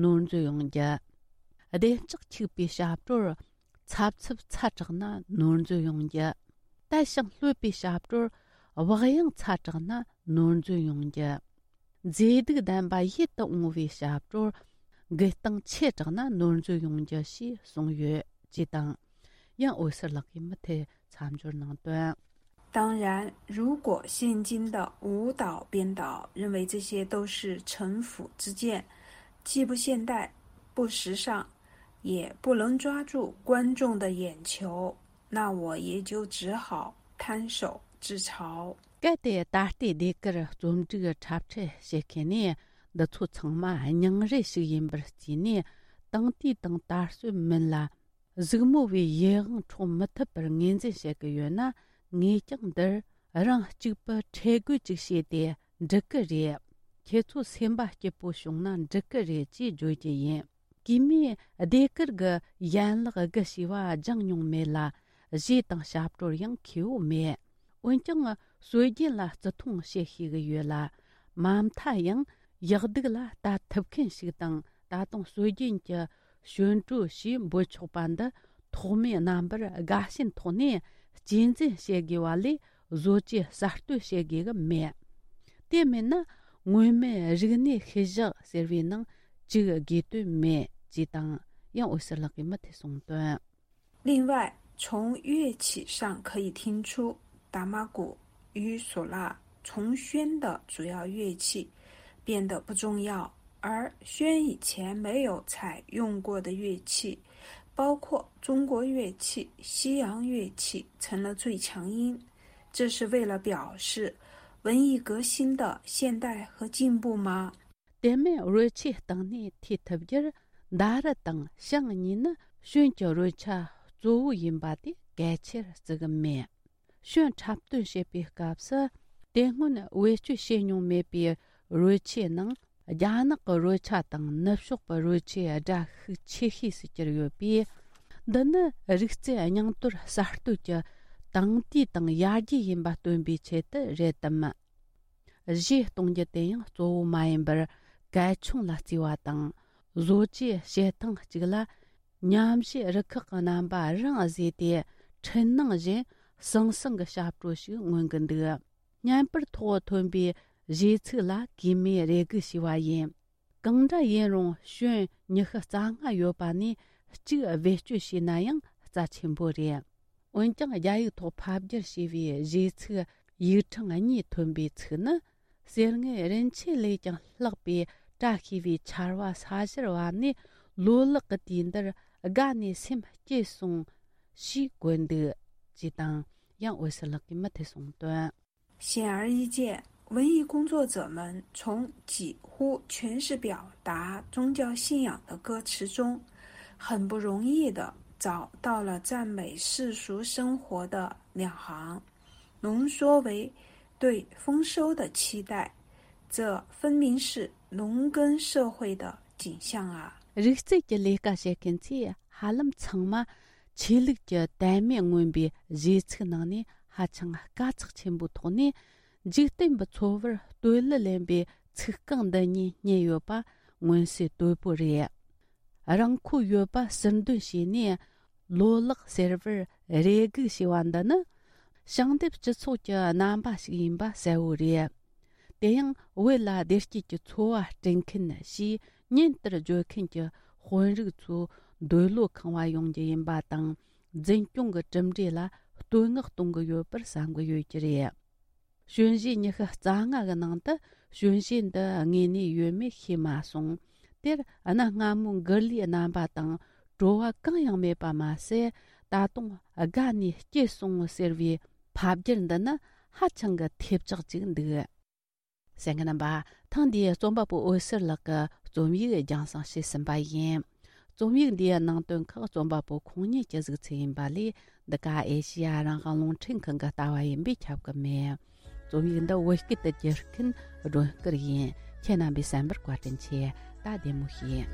ནོར་འཛོལ་ཡོང་རྒྱུ། བདེ་ལྕག་འཁྱུག་པའི་ཞབས་བྲོར། འཚབ་འཚུབ་ཚ་དྲགས་ན་ནོར་འཛོལ་ཡོང་རྒྱུ། དལ་ཞིང་ལྷོད་པའི་ཞབས་བྲོར། བག་ཡངས་ཚ་དྲགས་ན་ནོར་འཛོལ་ཡོང་རྒྱུ། མཛེས་སྡུག་ལྡན་པ་ཡིད་དུ་འོང་བའི་ཞབས་བྲོར། འགུལ་སྟངས་ཆེ་དྲགས་ན་ནོར་འཛོལ་ཡོང་རྒྱུ་ཞེས་གསུངས་ཡོད་ཅེས་དང་། ཡང་འོད་ཟེར་ལགས་ཀྱིས་མུ་མཐུད་མཚམས་སྦྱོར་གནང་དོན། 当然，如果现今的舞蹈编导认为这些都是城府之见，既不现代、不时尚，也不能抓住观众的眼球，那我也就只好摊手自嘲。 གལ་ཏེ་ད་ལྟའི་ཟློས་གར་རྩོམ་སྒྲིག་འཁྲབ་ཁྲིད་བྱེད་མཁན་ནི་འདི་ཚོ་ཚང་མ་སྙིང་རུས་ཤིག་ཡིན་པར་བརྩིས་ནས། དེང་དུས་དང་དར་སྲོལ་མིན་ལ། གཟིགས་མོ་བའི་ཡིད་དབང་འཕྲོག་མི་ཐུབ་པར་ངོས་འཛིན་བྱེད་ཀྱི་ཡོད་ན། ངས་ཀྱང་འདིར་རང་གཅིག་པུ་ཁྲེལ་དགོད་ཅིག་བྱས་ཏེ་འགྲིག་གི་རེད། ཁྱེད་ཚོ་སེམས་པ་སྐྱིད་པོ་བྱུང་ན་འགྲིག་གི་རེད་ཅེས་བརྗོད་ཀྱི་ཡིན། གུས་མོས་ཟློས་གར་གྱི་ཡན་ལག་དགུ་ཞེས་པ་སྦྱངས་མྱོང་མེད་ལ། གཞས་དང་ཞབས་བྲོར་ཡང་མཁས་པོ་མེད། འོན་ཀྱང་སྲོལ་རྒྱུན་ལ་བརྩི་མཐོང་བྱེད་ཤེས་ཀྱི་ཡོད་ལ། མ་མཐའ་ཡང་ཡག་སྡུག་ལ་ལྟ་ཐུབ་མཁན་ཞིག་དང་། ད་དུང་སྲོལ་རྒྱུན་གྱི་ཞོན་བྲོ་ཞེས་འབོད་ཆོག་པ་འདི་ཐོག་མའི་རྣམ་པར་དགའ་ཞེན་ཐོག་ནས་གཅེས་འཛིན་བྱེད་དགོས་པ་ལས། བཟོ་བཅོས་གསར་གཏོད་བྱེད་དགོས་ཀྱི་མེད། དེ་མིན་ན་སྔོན་མའི་རིག་གནས་ཤུལ་བཞག་ཟེར་བའི་ནང་བཅུག་དགོས་དོན་མེད་ཅེས་དང་། ཡང་འོད་ཟེར་ལགས་ཀྱིས་མུ་མཐུད་གསུངས་དོན། 另外，从乐器上可以听出，打马鼓与唢呐从宣的主要乐器变得不重要，而宣以前没有采用过的乐器，包括中国乐器、西洋乐器，成了最强音。这是为了表示文艺革新的现代和进步吗？ དེ་མིན་རོལ་ཆས་སྟེང་ནས་ཐོས་ཐུབ་རྒྱུར། མདའ་ར་དང་ཞང་གཉིས་ནི་ཞོན་གྱི་རོལ་ཆ་གཙོ་བོ་ཡིན་པ་དེ་གལ་ཆེར་བརྩི་གི་མེད། ཞོན་འཁྲབ་སྟོན་བྱེད་པའི་སྐབས་སུ། དེ་སྔོན་བེད་སྤྱོད་བྱས་མྱོང་མེད་པའི་རོལ་ཆའི་ནང་ རྒྱ་ནག་གི་རོལ་ཆ་དང་ནུབ་ཕྱོགས་པའི་རོལ་ཆའི་སྒྲ་ཤུགས་ཆེ་ཤོས་སུ་གྱུར་ཡོད་པས། འདི་ནི་རིག་རྩལ་རྙིང་དོར་གསར་གཏོད་ཀྱི་དེང་དུས་དང་ཡར་རྒྱས་ཡིན་པ་སྟོན་པའི་ཆེད་དུ་རེད་དམ། གཞས་གཏོང་རྒྱུ་དེ་ཡང་གཙོ་བོ་མ་ཡིན་པར་གལ་ཆུང་ལ་བརྩིས་པ་དང་། བཟོ་བཅོས་བྱེད་སྟངས་གཅིག་ལ་ཉམས་ཞིབ་རུ་ཁག་གི་རྣམ་པ་རང་བཟོས་ཏེ། འཕྲུལ་སྣང་བཞིན་ཟང་ཟིང་གི་ཞབས་བྲོ་ཞིག་མངོན་གྱི་འདུག། བརྙན་པར་ཐོག་ཐོན་པའི་གཞས་ཚིག་ལ་གུས་མོས་རེ་སྒུག་བྱས་པ་ཡིན། གང་འདྲ་ཡིན་རུང་ཞོན་ཉི་ཤུ་རྩ་ལྔ་ཡོད་པ་ནས་གཅིག་བེད་སྤྱོད་བྱས་ན་ཡང་རྩ་ཆེན་པོ་རེད། འོན་ཀྱང་རྒྱ་ཡིག་ཐོག་ཕབ་བསྒྱུར་བྱས་པའི་གཞས་ཚིག་ཡིག་ཕྲེང་གཉིས་ཐོན་པའི་ཚིག་ནི། གསེར་དངུལ་རིན་ཆེན་ལས་ཀྱང་ལྷག་པའི་བཀྲ་ཤིས་པའི་ཆར་པ་ས་གཞིར་བབས་ནས། ལོ་ལེགས་ཀྱི་དུས་འདིར་དགའ་ནས་སེམས་སྐྱིད་སོང་ཞེས་བཀོད་འདུག་ཅེས་དང་། ཡང་འོད་ཟེར་ལགས་ཀྱིས་མུ་མཐུད་གསུངས་དོན། 显而易见，文艺工作者们从几乎全是表达宗教信仰的歌词中，很不容易地找到了赞美世俗生活的两行，浓缩为对丰收的期待。这分明是农耕社会的景象啊！ རིག་རྩལ་གྱི་ལས་ཀ་བྱེད་མཁན་ཚོས་ཧ་ལམ་ཚང་མ་ཆོས་ལུགས་ཀྱི་དད་མོས་མངོན་པའི་གཞས་ཚིག་ནང་ནས་ཧ་ཅང་དཀའ་ཚེགས་ཆེན་པོའི་ཐོག་ནས། འཇིག་རྟེན་པའི་འཚོ་བར་བསྟོད་གླུ་ལེན་པའི་ཚིག་རྐང་འདི་གཉིས་རྙེད་ཡོད་པ་མངོན་གསལ་དོད་པོ་རེད། རང་མཁོ་ཡོད་པ་ཟུར་འདོན་བྱས་ནས། ལོ་ལེགས་ཟེར་བར་རེ་སྒུག་བྱས་པ་འདི་ནི། ཞིང་འདེབས་སྤྱི་ཚོགས་ཀྱི་རྣམ་པ་ཞིག་ཡིན་པ་གསལ་བོ་རེད། དེ་ཡང་བོད་ལ་བདེ་སྐྱིད་ཀྱི་འཚོ་བ་སྐྲུན་མཁན་ཞེས་ཉིན་ལྟར་བརྗོད་མཁན་གྱི་དཔོན་རིགས་ཚོ་འདོད་བློ་ཁེངས་པ་ཡོང་རྒྱུ་ཡིན་པ་དང་། འཛིན་སྐྱོང་གི་གྲུབ་འབྲས་ལ་བསྟོད་བསྔགས་གཏོང་གི་ཡོད་པར་བསམ་གྱི་ཡོད་ཀྱི་རེད། གཞོན་གཞས་ཉི་ཤུ་རྩ་ལྔ་གི་ནང་དུ་གཞོན་གཞས་འདི་དངོས་གནས་ཡོད་མེད་ཤེས་མ་སོང་། དེར་གནའ་སྔ་མོའི་མགུར་གླུའི་རྣམ་པ་དང་བྲོ་བ་གང་ཡང་མེད་པ་མ་ཟད། ད་དུང་དགའ་ནས་སྐྱིད་སོང་ཟེར་བའི་ཕབ་བསྒྱུར་འདི་ནི་ཧ་ཅང་གི་ཐེབས་ཆག་ཅིག་འདུག། གསན་མཁན་རྣམ་པ། ཐེངས་འདིའི་རྩོམ་པ་པོ་འོད་ཟེར་ལགས་ཀྱི་རྩོམ་ཡིག་རྒྱང་སྲིང་བྱས་ཟིན་པ་ཡིན། རྩོམ་ཡིག་འདིའི་ནང་དོན་ཁག་རྩོམ་པ་པོ་ཁོང་ཉིད་ཀྱི་གཟིགས་ཚུལ་ཡིན་པ་ལས། འདི་ག་ཨེ་ཤེ་ཡ་རང་དབང་རླུང་འཕྲིན་ཁང་གི་ལྟ་བ་ཡིན་པས་ཁྱབ་ཀྱི་མེད། རྩོམ་ཡིག་འདི་བོད་སྐད་དུ་བསྒྱུར་མཁན་སྒྲོན་སྐུར་ཡིན། ཁྱེད་རྣམ་པས་གསན་པར་བཀའ་དྲིན་ཆེ། ད་བདེ་མོ་བྱོས།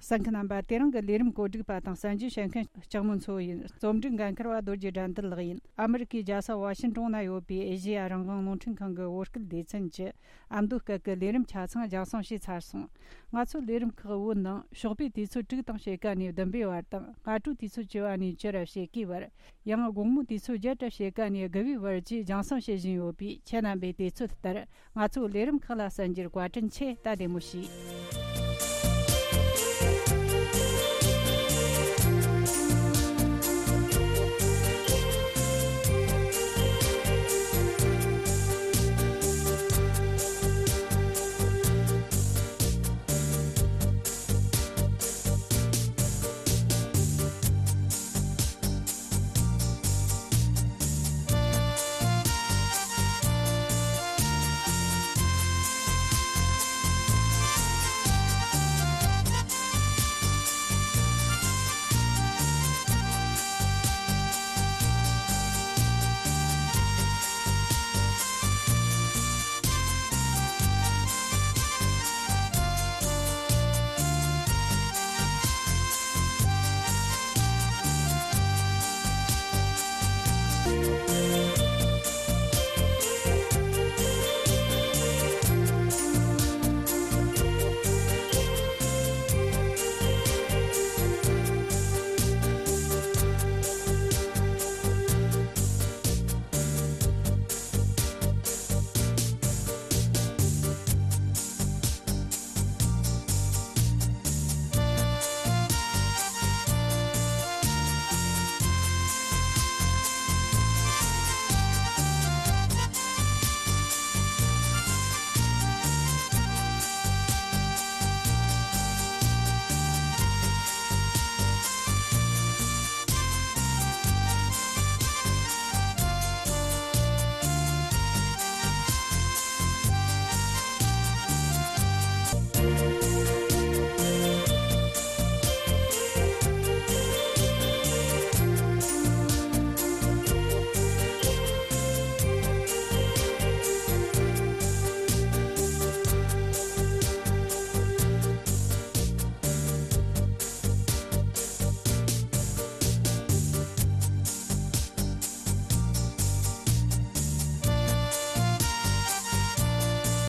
གསན་མཁན་རྣམ་པ། དེ་རིང་གི་ལས་རིམ་གོ་སྒྲིག་པ་དང་གསན་རྒྱུ་བྱེད་མཁན་ལྕགས་མོ་མཚོ་ཡིན། རྩོམ་སྒྲིག་འགན་འཁུར་བ་རྡོ་རྗེ་དགྲ་འདུལ་ལགས་ཡིན། ཨ་མི་རི་ཀའི་རྒྱལ་ས་ཝ་ཤིན་ཀྲོང་ན་ཡོད་པའི་ཨེ་ཤེ་ཡ་རང་དབང་རླུང་འཕྲིན་ཁང་གི་བོད་སྐད་སྡེ་ཚན་གྱི་ཨ་མདོ་སྐད་ཀྱི་ལས་རིམ་ཆ་ཚང་རྒྱང་སྲིང་བྱས་ཚར་སོང་། ང་ཚོའི་ལས་རིམ་ཁག་བོད་ནང་ཞོགས་པའི་དུས་ཚོད་དྲུག་དང་ཕྱེད་ཀ་ནས་བདུན་པའི་བར་དང་། སྔ་དྲོའི་དུས་ཚོད་བཅུ་པ་ནས་བཅུ་ར་ཕྱེད་ཀའི་བར། ཡང་དགོང་མོའི་དུས་ཚོད་བརྒྱད་ར་ཕྱེད་ཀ་ནས་དགུ་པའི་བར་བཅས་རྒྱང་སྲིང་བྱེད་བཞིན་ཡོད་པས། ཁྱེད་རྣམ་པས་དུས་ཚོད་ལྟར་ང་ཚོའི་ལས་རིམ་ཁག་ལ་གསན་རྒྱུར་བཀའ་དྲིན་ཆེ། ད་བདེ་མོ་བྱོས།